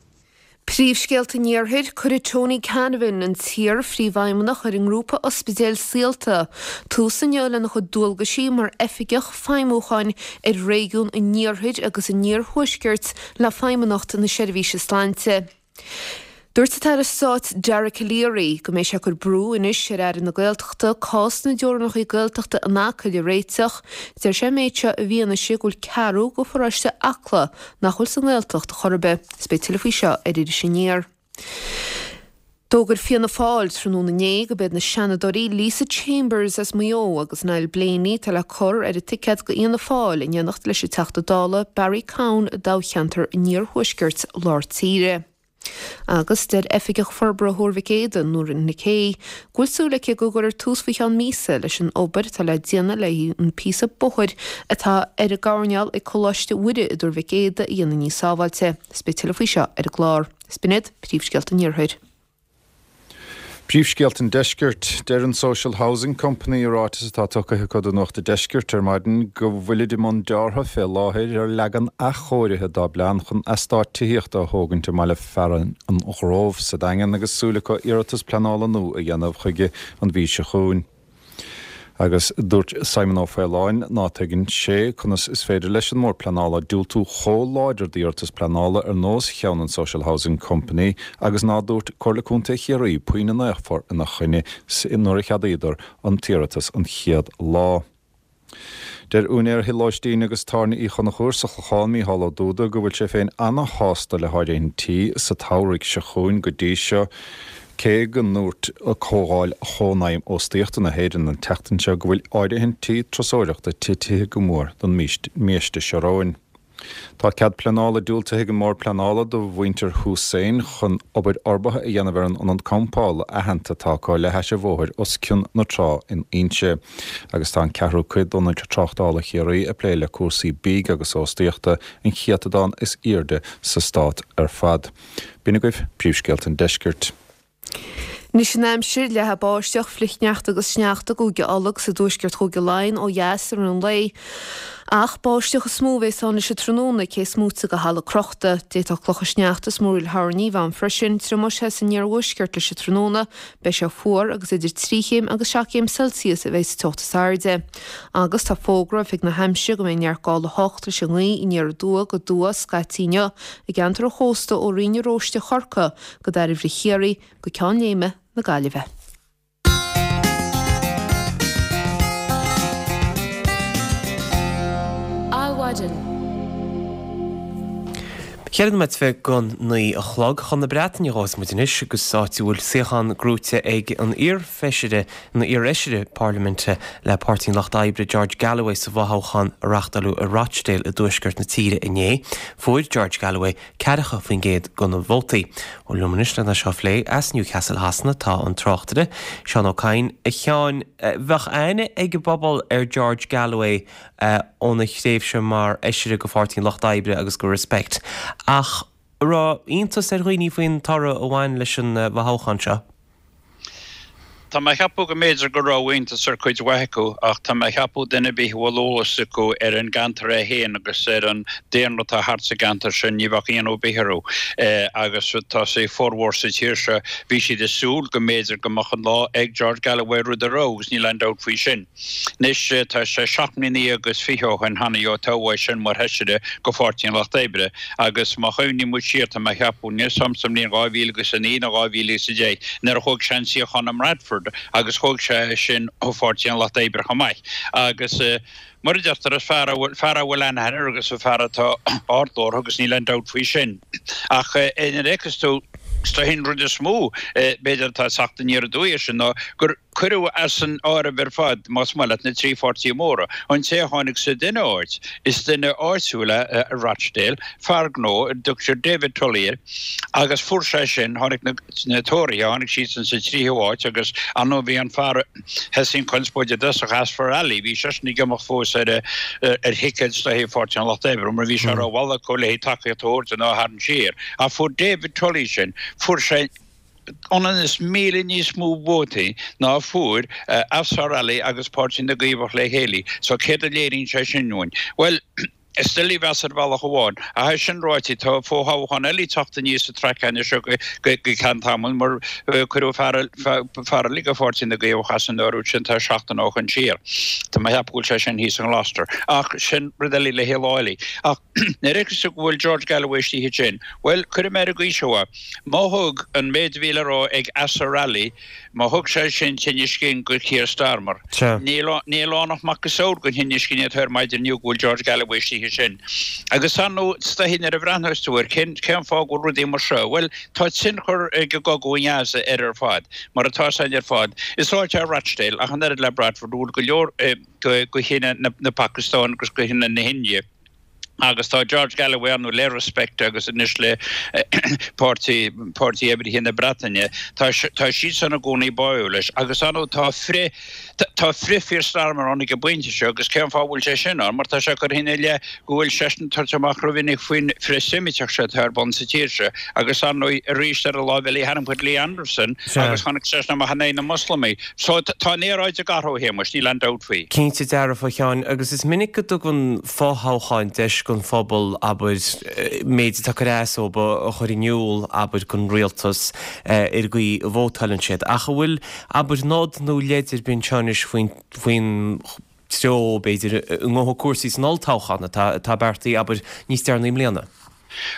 Príomhscéalta an Iarthair, Cuirfidh Tony Canavan, an t-iar-phríomhfheidhmeannach ar an ngrúpa ospidéil Saolta, tús inniu lena chuid dualgaisí mar Oifigeach Feidhmiúcháin ar réigiún an Iarthair agus an Iarthuaiscirt le Feidhmeannacht na Seirbhíse Sláinte. Dúirt an tAire Stáit Dara Calleary go mbeidh sé ag cur brú anois ar Aire na Gaeltachta cás na dteorainneacha Gaeltachta in Acaill a réiteach. Deir sé an méid seo i bhfianaise go bhfuil ceathrú de pharóiste Acla nach bhfuil sa nGaeltacht chor ar bith. Is beidh tuilleadh faoi seo ar Iris Aniar. D'fhógair Fianna Fáil tráthnóna inné go b'iad na Seanadóirí Lisa Chambers as Maigh Eo agus Niall Blaney atá le cur ar an ticéad do Fhianna Fáil in éineacht leis an Teachta Dála Barry Cowen i dtoghcheantar an Iarthuaiscirt Lár Tíre. Agus deir Oifigeach Forbartha Thuar Mhic Éadaigh, Nóirín Nic Aoidh, go bhfuil súil aici go gcuirfear tús faoi cheann míosa leis an obair atá le déanamh le an píosa bóthair atá ar an gcoirnéal ag Coláiste Mhuire i dTuar Mhic Éadaigh a dhéanamh níos sábháilte. Is beidh tuilleadh faoi seo ar an gclár. Is b'in iad príomhscéalta an Iarthair. Príomhscéalta an Deiscirt. Deir an Social Housing Company i ráiteas atá tugtha acu do Nuacht an Deiscirt ar maidin go bhfuilid i mbun deartha fé láthair ar leagan athchóirithe dá bplean chun eastát tithíochta a thógaint i mbaile fearainn an Ghrove sa Daingean agus súil acu iarratas pleanála nua a dhéanamh chuige an mhí seo chugainn. Agus dúirt Simon Ó Faoláin ná tuigeann sé conas is féidir leis an mBord Pleanála diúltú chomh láidir d'iarratas pleanála ar nós cheann an Social Housing Company agus ná dúirt Comhairle Contae Chiarraí puinn in aon chor ina choinne nuair a cheadaíodar an t-iarratas an chéad lá. Deir úinéir thigh lóistín agus tábhairne Uí Chonchúir sa Chlochán, Mícheál Ó Dúda, go bhfuil sé féin ana-shásta le háirithintí sa tsamhraidh seo chugainn go dtí seo, cé go ndúirt Comhdháil Chónaidhm Óstaíochta na hÉireann an tseachtain seo go bhfuil áirithintí turasóireachta titithe go mór don mbiaiste seo romhainn. Tá cead pleanála diúltaithe ag an mBord Pleanála do mhuintir Hussain chun obair fhorbartha a dhéanamh ar an ionad campála aitheanta atá acu le hais an bhóthair os cionn na trá in Inse. Agus tá an ceathrú cuid d'ionaid tráchtála Chiarraí ag plé le cúrsaí bídh agus óstaíochta, an céatadán is airde sa stát ar fad. B'in agaibh príomhscéalta an deiscirt. Anois an aimsir, leathfaidh báisteach, flichshneachta agus sneachta i gCúige Uladh agus i dtuaisceart Chúige Laighean ó dheas i rith an lae. Ach báisteach is mó a bheas ann leis an tráthnóna, cé is móite de thalamh crochta. D'fhéadfadh clocha sneachta is múraíl thoirní bheith ann freisin. Triomóidh sé san iarthuaisceart leis an tráthnóna. Beidh sé fuar agus idir 3 chéim agus 7 gcéim Celsius a bheidh sa teocht is airde. Agus tá fógra Oifig na hAimsire go mbeidh neart gála 8 leis an ngaoth aniar aduaidh go aduaidh scaití inniu i gceantar an chósta ó Rinn na Róiste Chorcaí go Dairbhre Chiarraí, go Ceann Léime na Gaillimhe. Adhmhaidin. Cheithre nóiméad go 9 a chlog. Chun na Breataine a ghabhfas muid anois agus áit a bhfuil suíochán gnóite ag an iar-fheisire, nó iar-fheisire parlaiminte le Páirtí an Lucht Oibre, George Galloway sa bhfothoghchán a reáchtáladh i Rochdale i dtuaisceart na tíre inné. Fuair George Galloway 40% de na vótaí. Bhuel, liom anois lena seo a phlé as Newcastle Shasana tá an tráchtaire, Seán Ó Cadhain. A Sheáin, bheadh aithne ag an bpobal ar George Galloway óna thréimhse mar fheisire go Pháirtí an Lucht Oibre agus go Respect, ach an raibh iontas ar dhaoine faoin toradh a bhain leis an bhfothoghchán seo? Tá mé a cheapadh go mb'fhéidir go raibh iontas ar cuid mhaith acu ach tá mé a cheapadh duine ar bith a bhfuil eolas acu ar an gceantar é féin agus ar an daonra atá thart sa gceantar sin ní bheadh ionadh ar bith orthu. Agus tá sé formhór sa tír seo bhí siad ag súil go mb'fhéidir go mbeadh an lá ag George Galloway rud a raibh agus níl aon dabht faoi sin. Anois tá sé 17 mbliana agus 20 ó shin cheana ó toghadh é sin mar Fheisire go Pháirtí an Lucht Oibre agus má chuimhníonn muid siar tá mé a cheapadh níl 'fhios a'm sa mbliain 2009 nó 2010 nuair a thóg sé an suíochán i mBradford agus thóg sé é sin ó Pháirtí an Lucht Oibre chomh maith agus mar a deirtear is fear a bhfuil fear a bhfuil aithne air agus fear atá ardghlórtha agus níl aon dabht faoi sin. Ach nuair a fheiceas tú is dóichí an rud is mó b'fhéidir atá ag teacht aniar aduaidh air sin ná gur Cuireadh as an áireamh ar fad, más maith leat, na trí pháirtí móra. An té a tháinig sa duine áit, is duine áitiúil é i Rochdale, fear gnó, a dtugtar David Tully air, agus fuair sé sin, tháinig na Tóraithe, tháinig siadsan sa tríú háit agus ar ndóigh bhí an fear a thosaigh an chonspóid i dtosach, Azfar Ali, bhí seisean ag imeacht fós ar ar thicéad is dóichí Pháirtí an Lucht Oibre mar bhí sé rómhall acu le tacaíocht a thabhairt dó ná a tharraingt siar. Ach fuair David Tully sin, fuair sé, ionann is 1,000 níos mó vótaí ná a fuair Azfar Ali agus Páirtí na gCaomhach le chéile. So céard a léiríonn sé sin dúinn? Bhuel, is doiligh a mheas ar bhealach amháin. Ach é sin ráite, tá fo-thoghchán eile ag teacht aníos sa traic anois seo go ceann tamaill mar cuireadh fear eile de Pháirtí na gCaomhach as an áireamh sin tá seachtain ó shin siar. Tá mé a cheapadh go bhfuil sé sin thíos i nGloucester. Ach sin rud eile le haghaidh lá eile. Ach nuair a fheiceas tú go bhfuil George Galloway istigh ansin, bhuel, cuirfidh mé ar an gcaoi seo é. Má thug an méid a bhí le rá ag Azhar Ali, má thug sé sin tinneas cinn go Keir Starmer, níl ann ach macasamhail den thinneas cinn atá air maidin inniu go bhfuil George Galloway istigh ansin. Agus ar ndóigh, is dóichí nuair a bhreathnós tú air, cén fáth go bhfuil rudaí mar seo? Bhuel, tá tionchar ag an gcogadh i nGaza air ar fad, mar atá 'fhios a'inn ar fad. Is áit é Rochdale, ach an oiread le Bradford, a bhfuil go leor de chine na Pacastáine agus de chine na hIndia. Agus tá George Galloway ar ndóigh le Respect agus anois le Páirtí Páirtí Oibrithe na Breataine, tá tá siadsan i gcónaí báúil leis. Agus ar ndóigh tá frith tá frith Keir Starmer ann ag an bpointe seo agus cén fáth a bhfuil sé sin ann? Mar tá sé curtha ina leith go bhfuil seisean ag tabhairt amach rómhinic faoin frith-Seimiteach seo atá ar bun sa tír seo. Agus ar ndóigh arís ar an láimh eile tharraing muid Lee Anderson agus tháinig seisean amach in aghaidh na Moslamaigh. So tá an aeráid ag athrú, a Shéamuis, níl aon dabht faoi. Cinnte dearfa, a Sheáin, agus is minic go dtugann fothoghcháin deis don phobal, abair, méid atá ag cur as dóibh a chur in iúl, abair, don rialtas ar an gcaoi a vótáileann siad. Ach an bhfuil, abair, nod nó leid ar bith anseo anois faoin, faoin treo, b'fhéidir, a ngabhfaidh cúrsaí san olltoghchán atá, atá beartaithe, abair, níos deireanaí i mbliana?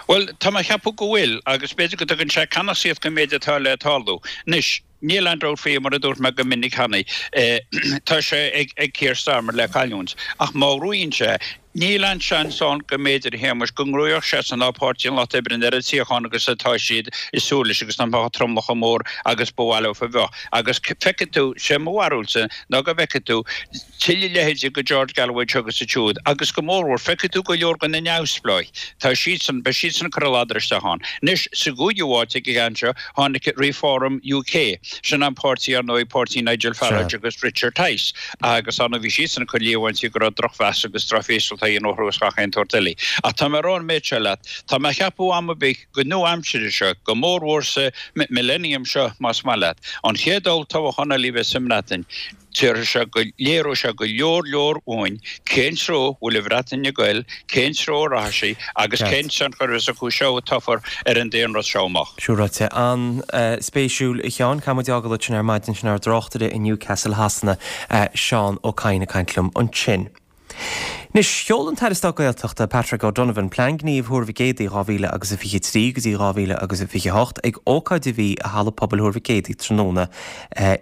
Bhuel, tá mé a cheapadh go bhfuil, agus b'fhéidir go dtugann sé ceannasaíocht don méid atá le tarlú. Anois, Níl aon dabht faoi, mar a dúirt mé go minic cheana, tá sé ag Keir Starmer le cailliúint. Ach má ghnóthaíonn sé, níl aon seans ann go mb'fhéidir, a Shéamais, go ngnóthódh seisean ná Páirtí an Lucht Oibre an oiread suíochán agus atá siad ag súil leis agus nach mbeadh an tromlach chomh mór agus ba mhaith leo a bheith. Agus feicfidh tú, sé mo bharúilsa ná go bhfeicfidh tú tuilleadh leithéidí de George Galloway anseo agus ansiúd agus go mórmhór, feicfidh tú go leor de na neamhspleáigh, tá siadsan, beidh siadsan ag cur a ladar isteach ann. Anois, sa gcúigiú háit ag an gceann seo, tháinig Reform UK, sin an páirtí, ar ndóigh, páirtí Nigel Farage agus Richard Tice, agus ar ndóigh bhí siadsan ag cur líomhaintí go raibh drochmheas agus drochfhreastal á dhéanamh orthu agus gach aon tsórt eile. Ach tá mé ag rá an méid seo leat, tá mé a cheapadh am ar bith go nua-aimsire seo, go mórmhór sa millennium seo más maith leat, an chéad olltoghchán eile a bheas sa mBreatain, Déarfaidh sé go léireoidh sé go leor leor uainn cén treo a bhfuil an Bhreatain ag goil, cén treo a rachaidh sí agus cén tionchar a bheas acu seo a toghfar ar an daonlathas seo amach. Sin ráite. An-spéisiúil, a Sheáin. Caithfidh muid fhágáil ansin ar maidin sin ár dtráchtaire i Newcastle Shasana, Seán Ó Cadhain ag caint liom ansin. Anois, sheol an tAire Stáit Gaeltachta, Patrick O'Donovan, Plean Gnímh Thuar Mhic Éadaigh 2023 go dtí 2028 ag ócáid a bhí i Halla Pobail Thuar Mhic Éadaigh tráthnóna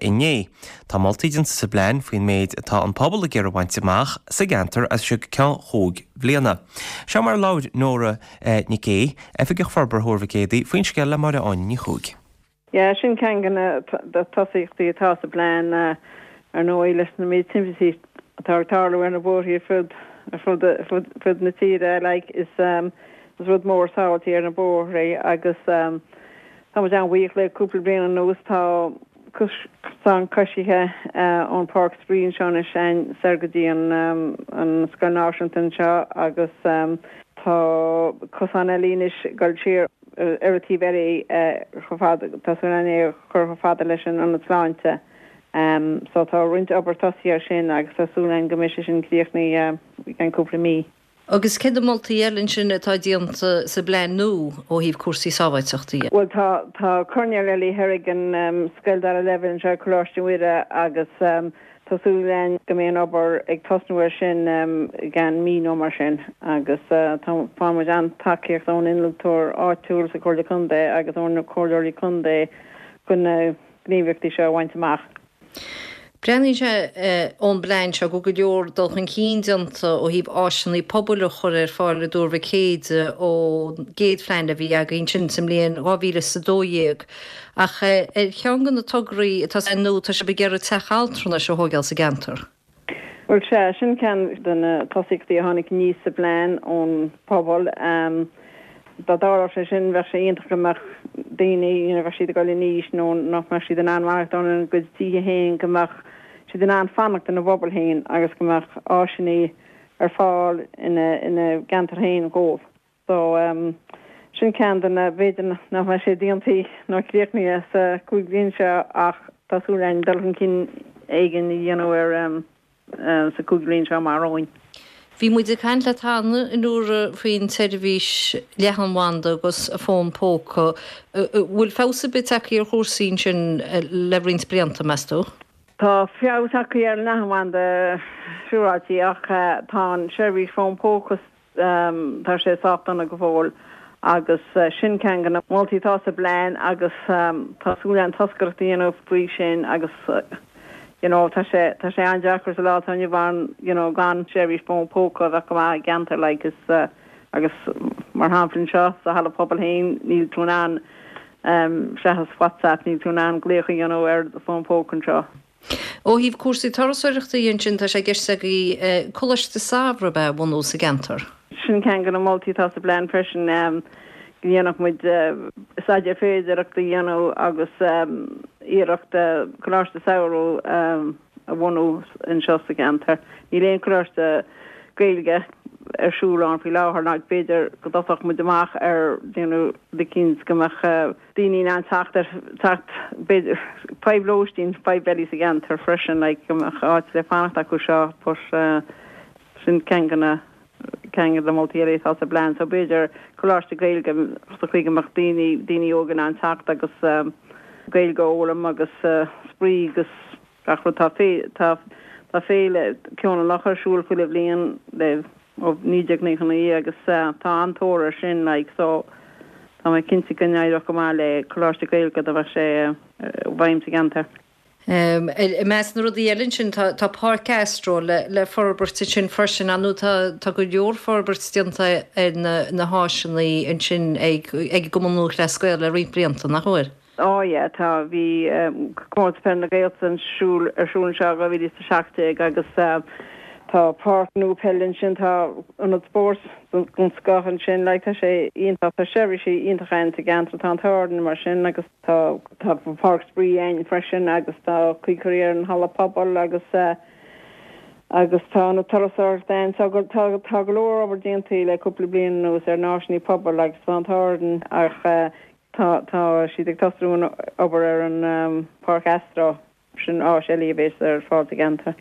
inné. Tá moltaí déanta sa bplean faoin méid atá an pobal ag iarraidh a bhaint amach sa gceantar as seo go ceann chúig bhliana. Seo mar a labhair Nóra Nic Aoidh, Oifigeach Forbartha Thuar Mhic Éadaigh, faoin scéal le Máire Áine Ní Chuaig. Yeah, sin ceann de na tosaíochtaí atá sa bplean, ar ndóigh, leis na méid timpistí atá ag tarlú ar na bóithrí ar fud ar fud fud na tíre, like, is is rud mór sábháilteacht ar na bóithrí agus tá muid an-bhuíoch le cúpla bliain anuas tá cosán coisithe ón Páirc Spraoi anseo anois soir go dtí an an Scoil Náisiúnta anseo agus tá cosán eile anois ag dul siar ar an taobh eile chomh fada, tá súil againn é a chur chomh fada leis an Ionad Sláinte. So tá roinnt obair tosaithe ar sin agus tá súil againn go mbeidh sé sin críochnaithe i gceann cúpla mí. Agus céard na moltaí eile ansin atá déanta sa bplean nua ó thaobh cúrsaí sábháilteachta dhe? Bhuel tá, tá coirnéal eile thoir ag an scoil dara leibhéal anseo, Coláiste Mhuire, agus Tá súil againn go mbeidh an obair ag tosnú air sin i gceann mí nó mar sin agus tá faigheann muid an-tacaíocht ón innealtóir áitiúil sa Chomhairle Contae agus ó na Comhairleoirí Contae chun na gníomhaíochtaí seo a bhaint amach. Breathnaíonn sé ón bplean seo go bhfuil go leor dul chun cinn déanta ó thaobh áiseanna pobail a chur ar fáil i dTuar Mhic Éadaigh ón gcéad phlean a bhí againn sin sa mbliain 2012. Ach ar cheann de na tograí atá sa nua, tá sibh ag iarraidh teach altranais a thóigeáil sa gceantar. Bhuel, sea, sin ceann de na tosaíochtaí a tháinig aníos sa bplean ón bpobal. Dá dtarlódh sé sin, bheadh sé iontach go mbeadh daoine, you know, bheadh siad ag dul in aois nó nach mbeadh siad in ann maireachtáil ina gcuid tithe féin, go mbeadh siad in ann fanacht ina bpobal féin agus go mbeadh áiseanna ar fáil ina gceantar féin dhóibh. So, sin ceann de na, b'fhéidir nach mbeidh sé déanta nó críochnaithe sa chúig bhliain seo ach tá súil againn dul chun cinn éigin a dhéanamh air sa chúig bhliain seo amach romhainn. Bhí muid ag caint leat cheana, a Nóra, faoin tseirbhís leathanbhanda agus fón póca. Bhfuil feabhas ar bith tagtha ar chúrsaí ansin le roinnt blianta, meas tú? Tá feabhas tagtha ar an leathanbhanda siúráilte ach tá an seirbhís fón póca Tá sé sách dona go fóill agus sin ceann de na moltaí atá sa bplean agus tá súil againn toscaireacht a dhéanamh faoi sin agus you know tá sé tá sé an-deacair sa lá atá inniu ann you know gan seirbhís fón póca a bheith go maith i gceantar like is agus mar shampla anseo sa halla pobail féin níl tú in ann seachas WhatsApp níl tú in ann glaoch a dhéanamh ar do fón póca anseo. Ó thaobh cúrsaí turasóireachta dhe ansin, tá sé i gceist agaibh Coláiste Samhraidh ab ea a bhunú sa gceantar? Sin ceann de na moltaí atá sa bplean freisin, go ndéanfadh muid staidéar féidearthachta a dhéanamh agus iarracht coláiste samhraidh a bhunú anseo sa cheantar. Níl aon choláiste Gaeilge ar siúl ann faoi láthair ná b'fhéidir go dtosódh muid amach ar déanamh rud eicínt go mbeadh daoine in ann teacht ar teacht b'fhéidir fadhb lóistín, fadhb eile sa gceantar freisin like go mbeadh áit le fanacht acu seo but sin ceann de na ceann de na moltaí eile atá sa bplean so b'fhéidir coláiste Gaeilge sa chaoi go mbeadh daoine daoine óga in ann teacht agus Gaeilge a fhoghlaim agus spraoi agus gach rud. Tá tá tá féile Ceol an Locha ar siúl chuile bhliain le ó 1999 agus tá an-tóir air sin like so tá mé cinnte go n-éireodh go maith le coláiste Gaeilge dá mbeadh sé i bhfeidhm sa gceantar. I measc na rudaí eile ansin tá Páirc Astro le forbairt ansin freisin. Ar ndóigh tá go leor forbairt déanta ar na háiseanna ansin ag an gCumann Lúthchleas Gael le roinnt blianta, nach bhfuil? Á yeah, tá. Bhí Comórtas Peile na Gaeltachta ar siúl ar siúl anseo i 2017 agus tá páirc nua peile ansin, tá ionad spóirt den scoth ansin, like tá sé iontach, tá seirbhísí iontacha ann sa gceantar, tá an t-ádh orainn mar sin agus. Tá páirc spraoi ann freisin agus tá caoi curtha ar an halla pobail agus agus tá ionad turasóireachta ann. So tá tá go leor obair déanta le cúpla bliain anuas ar na háiseanna pobail agus tá an t-ádh orainn ach tá tá siad ag tosnú an obair ar an Páirc Astro. Sin áis eile a bheas ar fáil sa gceantar.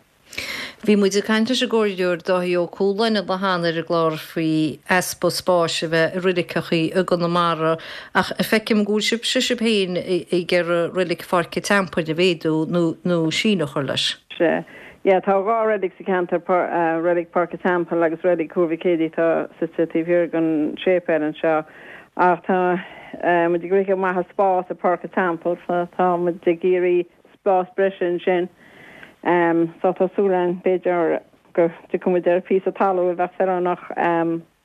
Bhí muid ag caint leis an gComhairleoir Dáithí Ó Cualáin an lá cheana ar an gclár faoi easpa spáis a bheith i roiliceachaí i gConamara ach feicim go bhfuil sibhse sibh féin ag iarraidh roilig Pháirc an Teampaill a mhéadú nó nó síneadh a chur leis. Sea. Yeah, tá 2 reilig sa cheantar, Reilig Páirc an Teampaill agus Reilig Thuar Mhic Éadaigh atá suite taobh thiar den séipéal anseo. Ach tá muid ag rith amach as spás i Páirc an Teampaill so tá muid ag iarraidh spás breise ansin. So tá súil againn b'fhéidir go dtiocfaidh muid ar phíosa talún a bheadh feiliúnach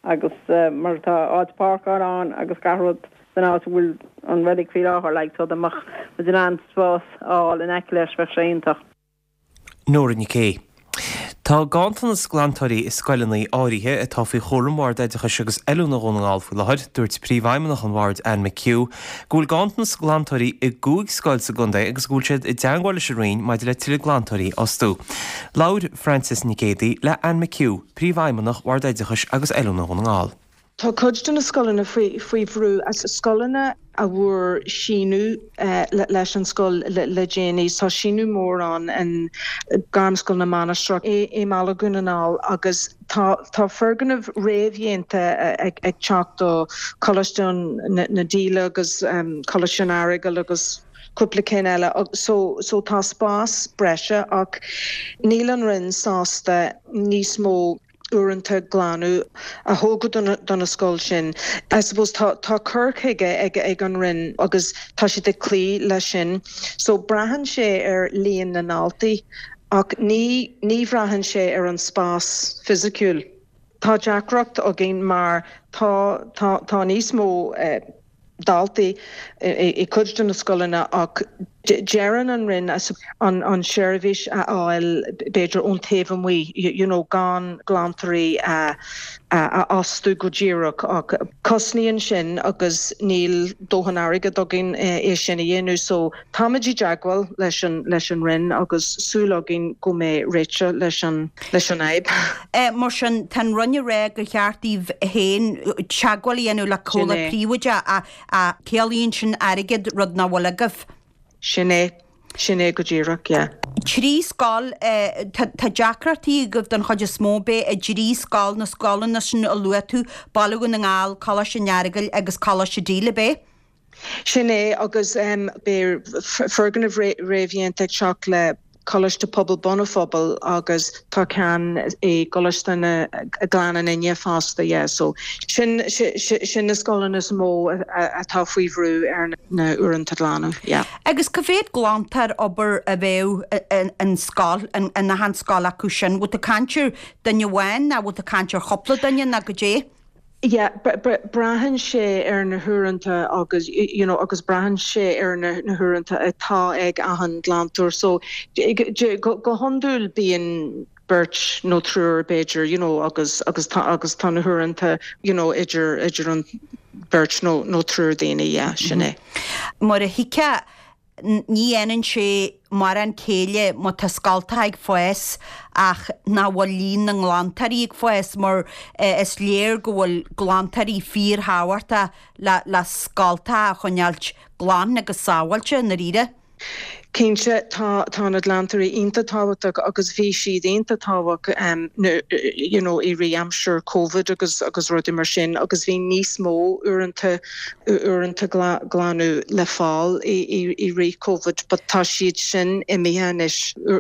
agus mar tá áit páirceála ann agus gach rud san áit a bhfuil an reilig faoi láthair like so dá mbeadh muid in ann spás a fháil in aice leis bheadh sé iontach. Nóra Nic Aoidh. Tá ganntanas glantóirí i scoileanna áirithe atá faoi chúram Bhord Oideachais agus Oiliúna Dhún na nGall faoi láthair. Dúirt Príomhfheidhmeannach an Bhoird, Anne McHugh, go bhfuil ganntanas glantóirí i gcúig scoil sa gcontae agus go bhfuil siad i dteangmháil leis an Roinn maidir le tuilleadh glantóirí a fhostú. Labhair Frances Nic Géadaigh le Anne McHugh, Príomhfheidhmeannach Bhord Oideachais agus Oiliúna Dhún na nGall. Tá cuid de na scoileanna faoi bhrú, scoileanna a bhfuair síneadh leis an scoil le déanaí. Tá síneadh mór ann i Gairmscoil na Mainistreach i mBaile Dhún na nGall agus tá foirgnimh réamhdhéanta ag teacht do Choláiste na Díle agus Coláiste an Earagail agus cúpla cinn eile. So tá spás breise ach níl an Roinn sásta níos mó uaireanta glanadh a thógáil do na scoil sin. I suppose tá tá cur chuige ag ag an Roinn agus tá siad ag cloí leis sin. So braitheann sé ar líon na ndaltaí ach ní ní bhraitheann sé ar an spás fisiciúil. Tá deacracht againn mar tá tá tá níos mó daltaí i cuid de na scoileanna ach deireann an Roinn an seirbhís a fháil b'fhéidir ón taobh amuigh, you know gan glantóirí a fhostú go díreach ach cosnaíonn sin agus níl dóthain airgead againn é sin a dhéanamh so táimid i dteagmháil leis an leis an Roinn agus súil againn go mbeidh réiteach leis an leis an fhadhb. Mar sin, tá an Roinn ag rá gur cheart daoibh féin teagmháil a dhéanamh le comhlacht príobháideach ach ciallaíonn sin airgead, rud nach bhfuil agaibh. Sin é. Sin é go díreach, yeah. Trí scoil, tá deacrachtaí agaibh don chuid is mó, ab ea i dtrí scoil, na scoileanna sin a luaigh tú, Baile Dhún na nGall, Coláiste an Earagail agus Coláiste Díle, ab ea? Sin é, agus beidh foirgneamh réamhdhéanta ag teacht le Coláiste Pobail Bun an Phobail agus tá ceann i gColáiste na Gleann an Fhine fosta, yeah. So sin, sin na scoileanna is mó atá faoi bhrú ar na uaireanta glanadh, yeah. Agus cá mhéad glantóir abair a bheadh in scoil, in achan scoil acu sin? Bhfuil tú ag caint ar duine amháin nó bhfuil tú ag caint ar chúpla duine nó goidé? Yeah, braitheann sé ar na huaireanta agus, you know, agus braitheann sé ar na huaireanta atá ag achan glantóir. So, go hiondúil bíonn. beirt nó triúr b'fhéidir you know agus agus tá agus tá na huaireanta you know idir idir an beirt nó nó triúr daoine yeah sin é. Mar a thuigfeá ní dhéanann sé mórán céille má tá scoltacha ag fás ach nach bhfuil líon na nglantóirí ag fás mar is léir go bhfuil glantóirí fíorthábhachtach le le scoltacha a choinneáilt glan agus sábháilte i ndáiríre. Cinnte, tá, tá na glantóirí iontach tábhachtach agus bhí siad iontach tábhachtach you know i rith aimsir Covid agus agus rudaí mar sin agus bhí níos mó uaireanta uaireanta glanadh le fáil i i rith Covid but tá siad sin imithe anois.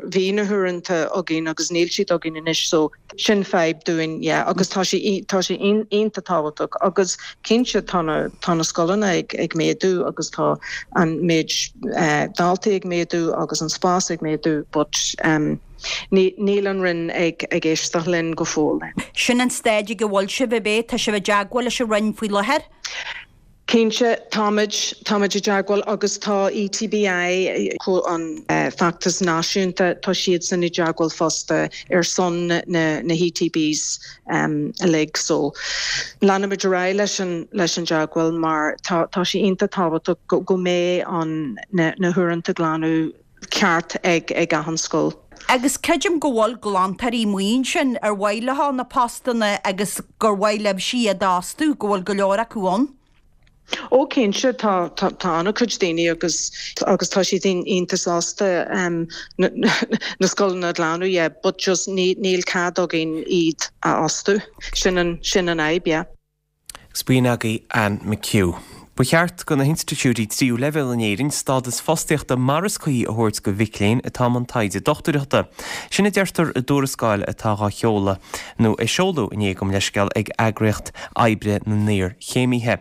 Bhí na huaireanta againn agus níl siad againn anois so Sin fadhb dúinn, yeah, agus tá sé, tá sé iontach tábhachtach agus cinnte tá na, tá na scoileanna ag, ag méadú agus tá an méid daltaí ag méadú agus an spás ag méadú but ní, níl an Roinn ag, ag éisteacht linn go fóill. Sin an staid ag a bhfuil sibh, ab é? Tá sibh i dteagmháil leis an Roinn faoi láthair? Cinnte, táimid, táimid i dteagmháil agus tá ETBI, an feachtas náisiúnta, tá siadsan i dteagmháil fosta ar son na, na hETBs uilig. So, leanfaimid ar aghaidh leis an, leis an dteagmháil mar tá, tá sé iontach tábhachtach go, go mbeidh an, na, na huaireanta glanadh ceart ag, ag achan scoil. Agus creidim go bhfuil glantóirí amuigh ansin ar mhaith leo na postanna agus gur mhaith libhse iad a fhostú, go bhfuil go leor acu ann. Ó cinnte, tá, tá, tá an-chuid daoine agus, agus tá siad iontach sásta na, na scoileanna a ghlanadh, yeah, but just ní, níl cead againn iad a fhostú. Sin an, sin an fhadhb, yeah. Agus b'in agaibh Anne McHugh. Ba cheart do na hinstitiúidí tríú leibhéal in Éirinn stádas fostaíochta mar is cuí a thabhairt do mhic léinn atá i mbun taighde dochtúireachta. Sin a deirtear i dtuarascáil atá dhá sheoladh, nó a seoladh inné gabh mo leithscéal, ag Eagraíocht Oibre na nIarchéimithe.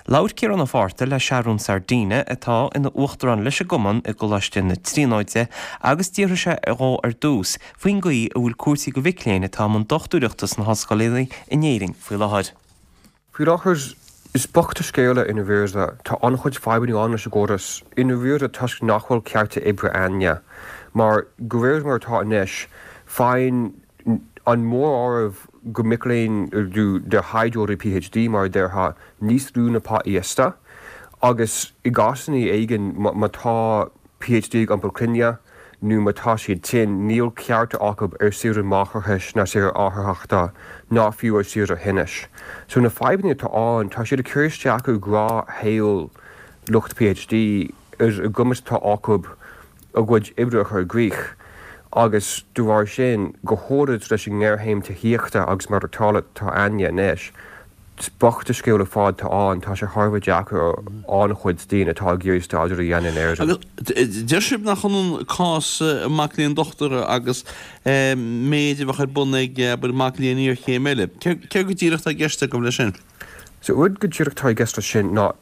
Labhair Ciarán Ó Fátharta le Seathrún Sardina, atá ina uachtarán leis an gcumann i gColáiste na Tríonóide, agus d'fhiafraigh sé dhó ar dtús faoin gcaoi a bhfuil cúrsaí do mhic léinn atá i mbun dochtúireachta sna hollscoileanna in Éirinn faoi láthair. Faoi láthair, is bocht an scéal é i ndáiríre. Tá an-chuid fadhbanna ann leis an gcóras i ndáiríre toisc nach bhfuil cearta oibre a'inne. Mar, de réir mar atá anois, faigheann an móráireamh de mhic léinn, de thaighdeoirí PhD mar a déarfá, níos lú na pá íosta agus i gcásanna éigin má tá PhD ag iompar clainne nó má tá siad tinn, níl cearta acu ar saoire máithreachais ná saoire atharthachta ná fiú ar saoire thinnis. So na fadhbanna atá ann, tá siad ag cur isteach ar ghnáthshaol lucht PhD, ar an gcumas atá acu a gcuid oibre a chur i gcrích agus de bharr sin, go háirid leis an ngéarchéim tithíochta agus maireachtála atá a'inne anois, Is bocht an scéal ar fad atá ann, tá sé thar a bheith deacair ar an-chuid daoine atá ag iarraidh staidéar a dhéanamh in Éirinn. Agus deir sibh nach ionann cás mac léinn dochtúra agus méid a bheadh ar bun ag, abair, mac léinn iarchéime eile. Céard go díreach atá i gceist agaibh leis sin? So rud go díreach atá i gceist leis sin ná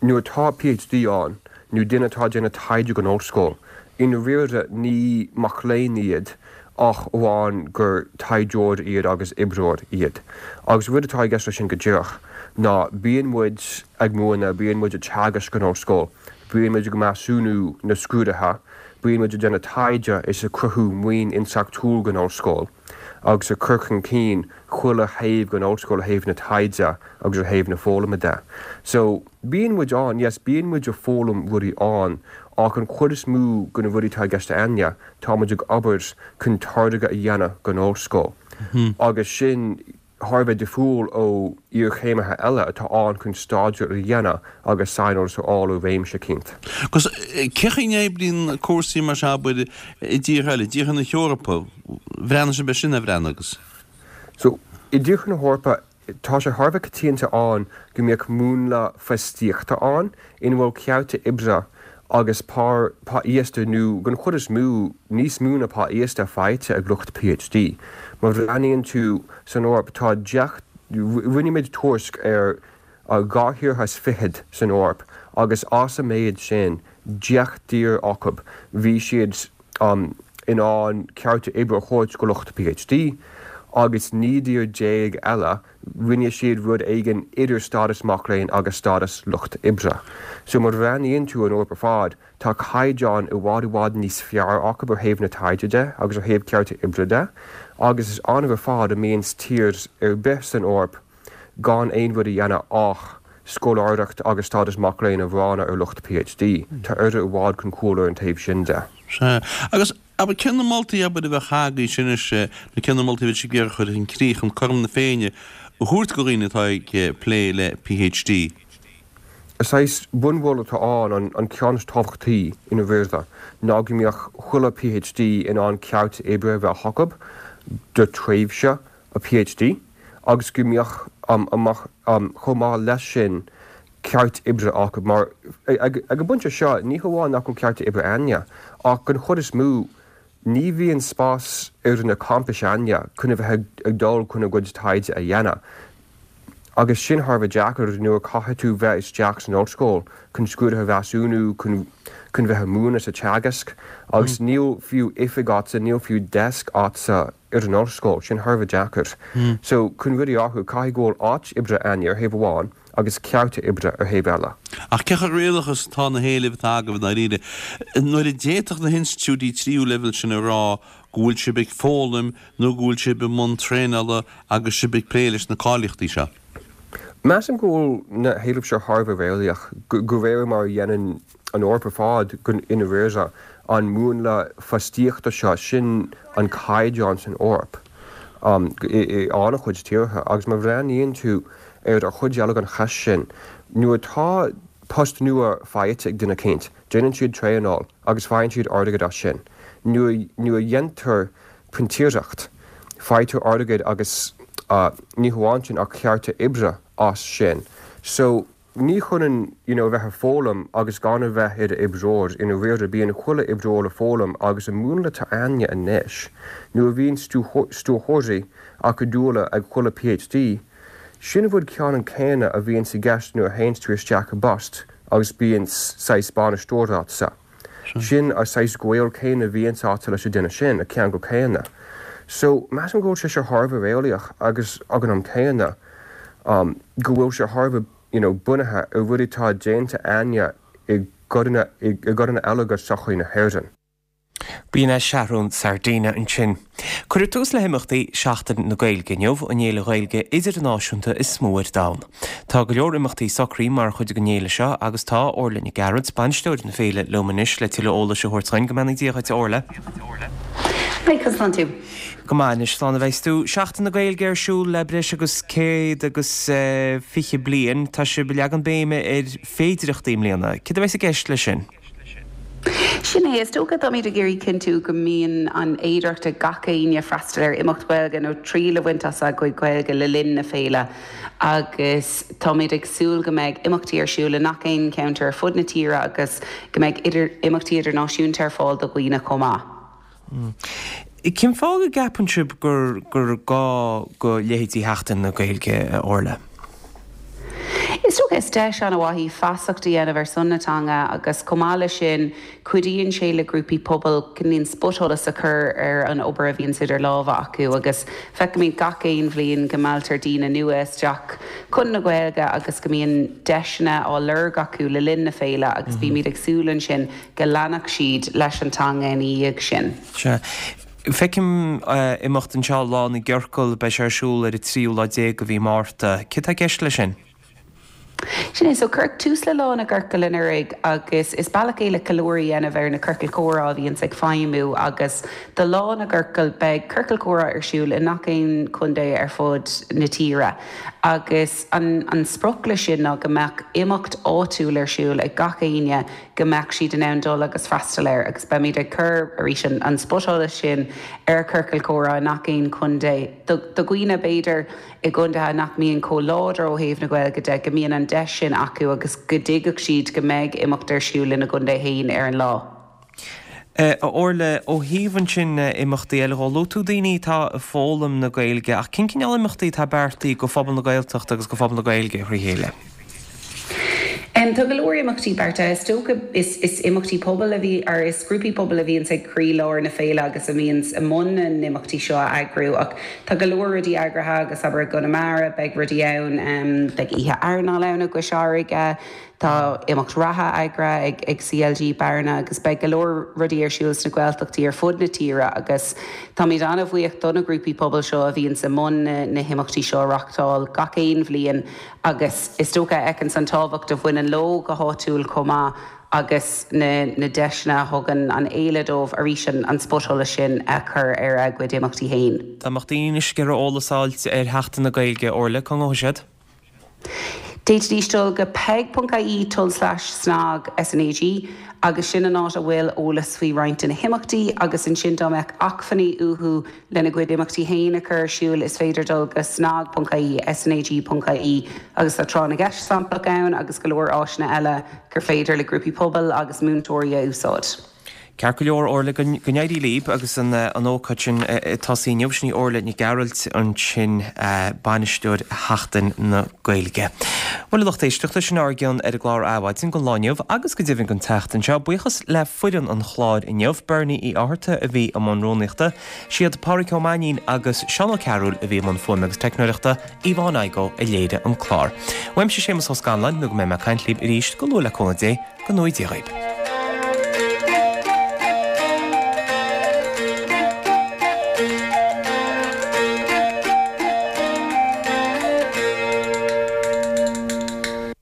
Nuair atá PhD ann, nó duine atá ag déanamh taighde don ollscoil, i ndáiríre ní mac léinn iad ach amháin gur taighdeoir iad agus oibreoir iad. Agus rud atá i gceist leis sin go díreach ná bíonn muid ag múineadh, bíonn muid ag teagasc san ollscoil, bíonn muid ag measúnú na scrúduithe, bíonn muid ag déanamh taighde is ag cruthú maoin intleachtúil don ollscoil agus ag cur chun cinn chuile thaobh den ollscoil ó thaobh na taighde agus ó thaobh na foghlama de. So, bíonn muid ann, yes, bíonn muid ag foghlaim rudaí ann ach an chuid is mó de na rudaí atá i gceist a'inne, tá muid ag obair chun táirge a dhéanamh don ollscoil agus sin thar a bheith difriúil ó iarchéimithe eile atá ann chun staidéar a dhéanamh agus saineolas a fháil i réimse eicínt. Agus cén chaoi a n-oibríonn cúrsaí mar seo, abair, i dtíortha eile, i dtíortha na hEorpa, bhreathnaigh sibh air sin, ar bhreathnaigh agus? So, i dtíortha na hEorpa, tá sé thar a bheith coitianta ann go mbeadh múnla fostaíochta ann ina bhfuil cearta oibre agus pá, pá íosta nó, den chuid is mó, níos mó ná pá íosta faighte ag lucht PhD. Má bhreathnaíonn tú san Eoraip, tá deich, rinne muid tuairisc ar 22 thíortha san Eoraip agus as an méid sin, 10 dtír acu, bhí siad in ann cearta oibre a thabhairt go lucht PhD. agus 19 dtír eile rinne siad rud éigin idir stádas mac léinn agus stádas lucht oibre. So má bhreathnaíonn tú an Eoraip ar fad, tá caighdeán i bhfad i bhfad níos fearr acu ó thaobh na taighde de agus ó thaobh cearta oibre de agus is annamh ar fad a mbíonns tír ar bith san Eoraip gan aon rud a dhéanamh ach scoláireacht agus stádas mac léinn a bhronnadh ar lucht PhD. Tá Éire i bhfad chun cúil ar an taobh sin de. Sea. Agus, abair, cé na moltaí, abair, a bheadh agaibhse anois, nó cé na moltaí a bheadh sibh ag iarraidh a chur chun críche chun cothrom na Féinne a thabhairt do dhaoine atá ag plé le PhD? Saghas bunmholadh atá ann, an ceann is tábhachtaí i ndáiríre, ná go mbeadh chuile PhD in ann ceart oibre a bheith acu do tréimhse a PhD agus go mbeadh chomh maith leis sin ceart oibre acu mar ag an bpointe seo ní hamháin nach bhfuil cearta oibre a'inne ach den chuid is mó Ní bhíonn spás ar na campais a'inne chun a bheith ag dul chun a gcuid taighde a dhéanamh agus sin thar a bheith deacair nuair a caithfidh tú bheith isteach san ollscoil chun scrúduithe a mheasúnú, chun chun bheith ag múineadh sa teagasc agus níl fiú oifig a'dsa, níl fiú desk a'dsa ar an ollscoil, sin thar a bheith deacair. So chun rudaí a athrú caithfidh go bhfuil áit oibre a'inne ar thaobh amháin agus cearta oibre ar thaobh eile. Ach cé chomh réalaíoch is atá na héilimh atá agaibh i ndáiríre? Nuair a d'fhéadfadh na hinstitiúidí tríú leibhéal sin a rá go bhfuil sibh ag foghlaim nó go bhfuil sibh i mbun traenála agus sibh ag plé leis na cáilíochtaí seo? Measaim go bhfuil na héilimh seo thar a bheith réalaíoch, de réir mar a dhéanann an Eoraip ar fad i ndáiríre, an múnla fostaíochta seo, sin an caighdeán san Eoraip i an-chuid tíortha. Agus má bhreathnaíonn tú ar an chuid eile den cheist sin, nuair atá post nua faighte ag duine eicínt, déanann siad traenáil agus faigheann siad airgead as sin. Nuair a dhéantar printíseacht, faightear airgead agus ní hamháin sin ach cearta oibre as sin. So. Ní hionann you know a bheith ag foghlaim agus gan a bheith i d'oibreoir, i ndáiríre bíonn chuile oibreoir ag foghlaim agus an múnla atá a'inne anois, nuair a bhíonn stiúrthóirí acadúla ag chuile PhD, sin an rud ceannann céanna a bhíonns i gceist nuair a théanns tú isteach i bpost agus bíonns saghas bainisteoir a'dsa. Sin an saghas gaol céanna a bhíonns a'dsa leis an duine sin, an ceangal céanna. So, measaim go bhfuil sé seo thar a bheith réalaíoch agus ag an am céanna, go bhfuil sé thar a bheith you know bunaithe ar rudaí atá déanta a'inne i gcodanna i gcodanna eile de sochaí na hÉireann. B'in é Seathrún Sardina ansin. Cuireadh tús le himeachtaí Seachtain na Gaeilge inniu, an fhéile Ghaeilge idirnáisiúnta is mó ar domhan. Tá go leor imeachtaí socraithe mar chuid den fhéile seo agus tá Orla Nic Gearailt, bainisteoir na féile, liom anois le tuilleadh eolais a thabhairt dhuinn. Go mbeannaí Dia dhuit, a Orla. Hi, conas tánn tú? Go maith anois, slán a bheas tú. Seachtain na Gaeilge ar siúl le breis agus 120 bliain. Tá sibh ag leagan béime ar féidireachtaí i mbliana. Céard a bheas i gceist leis sin? Sin é, is dócha táimid ag iarraidh cinntiú go mbíonn an fhéidearthacht ag gach éinne freastal ar imeacht Ghaeilge nó triail a bhaint as a gcuid Gaeilge le linn na féile agus táimid ag súil go mbeidh imeachtaí ar siúl i ngach aon cheantar ar fud na tíre agus go mbeidh imeachtaí idirnáisiúnta ar fáil do dhaoine chomh maith. Cén fáth go gceapann sibh gur gur gá go leithéidí Sheachtain na Gaeilge, a Orla? Is dócha is deis an-mhaith í feasacht a dhéanamh ar son na teanga agus chomh maith leis sin cuidíonn sé le grúpaí pobail cineál spotsholas a chur ar an obair a bhíonns idir lámha acu agus feicimid gach aon bhliain go mealltar daoine nua isteach chun na Gaeilge agus go mbíonn deiseanna á lorg acu le linn na féile agus bímid ag súil ansin go leanfadh siad leis an teanga ina dhiaidh sin. Sea. Feicim imeacht anseo, Lá na gCiorcal, beidh sé ar siúl ar an tríú lá déag de mhí Márta. Céard tá i gceist leis sin? Sin é, so cuireadh tús le Lá na gCiorcal anuraidh agus is bealach é le ceiliúradh a dhéanamh ar na ciorcail chomhrá a bhíonns ag feidhmiú agus do Lá na gCiorcal beidh ciorcal comhrá ar siúl i ngach aon chontae ar fud na tíre agus an an sprioc leis sin ná go mbeadh imeacht áitiúil ar siúl ag gach éinne go mbeadh siad in ann dul agus freastal air agus beimid ag cur, arís, an spotsholas sin ar chiorcail chomhrá i ngach aon chontae. Do dhaoine, b'fhéidir, i gcontaetha nach mbíonn chomh láidir ó thaobh na Gaeilge de, go mbíonn an deis sin acu agus go dtuigfeadh siad go mbeidh imeacht ar siúl ina gcontae féin ar an lá. A Orla, ó thaobh ansin imeachtaí eile dhó, luaigh tú daoine atá ag foghlaim na Gaeilge ach cén cineál imeachtaí atá beartaithe go phobal na Gaeltachta agus go phobal na Gaeilge thrí chéile? Tá go leor imeachtaí beartaithe. Is dócha is is imeachtaí pobail a bhí, or is grúpaí pobail a bhíonns ag croílár na féile agus a bhíonns i mbun na n-imeachtaí seo a eagrú ach tá go leor rudaí eagraithe agus abair i gConamara beidh rudaí ann, beidh oíche airneáil ann i gCois Fharraige, tá imeacht reatha eagraithe ag ag CLG Bearna agus beidh go leor rudaí ar siúl sna Gaeltachtaí ar fud na tíre agus táimid an-bhuíoch do na grúpaí pobail seo a bhíonns i mbun na na himeachtaí seo a reachtáil gach aon bhliain agus is dócha a fheiceanns an tábhacht a bhaineann leo go háitiúil chomh maith agus na na deiseanna a thugann an fhéile dóibh arís an spotsholas sin a chur ar a gcuid imeachtaí féin. Dá mbeadh daoine anois ag iarraidh eolas a fháilt ar Sheachtain na Gaeilge, Orla, cá ngabhfaidh siad? D'fhéadfaidís dul go peig.ie tulslais snag, SNAG, agus sin an áit a bhfuil eolas faoi roinnt de na himeachtaí agus ansin dá mbeadh acmhainní uathu Lena gcuid imeachtaí féin a chur ar siúl, is féidir dul go snag.ie, snag.ie, agus tá tráth na gceist samplach ann agus go leor áiseanna eile gur féidir le grúpaí pobail agus múinteoirí a úsáid. Ceart go leor, Orla, go n-éirí libh agus an ócáid sin ag tosaí inniu. Sin í Orla Nic Gearailt ansin, bainisteoir Sheachtain na Gaeilge. Bhuel, a lucht éisteachta, sin ár gcion ar an gclár Adhmhaidin don lá inniu agus go deimhin don tseachtain seo. Buíochas le foireann an chláir inniu, Bernie Uí Fhátharta a bhí i mbun rúnaíochta, Siad Pádraig Ó Mainnín agus Seán Ó Cearúil a bhí i mbun fuaime agus teicneoireachta, Yvonne Igoe a léirigh an clár. Uaimse Séamus Ó Scanláin, nó go mbeidh mé ag caint libh arís go luath le cúnamh Dé, go ngnóthaí Dia dhaoib.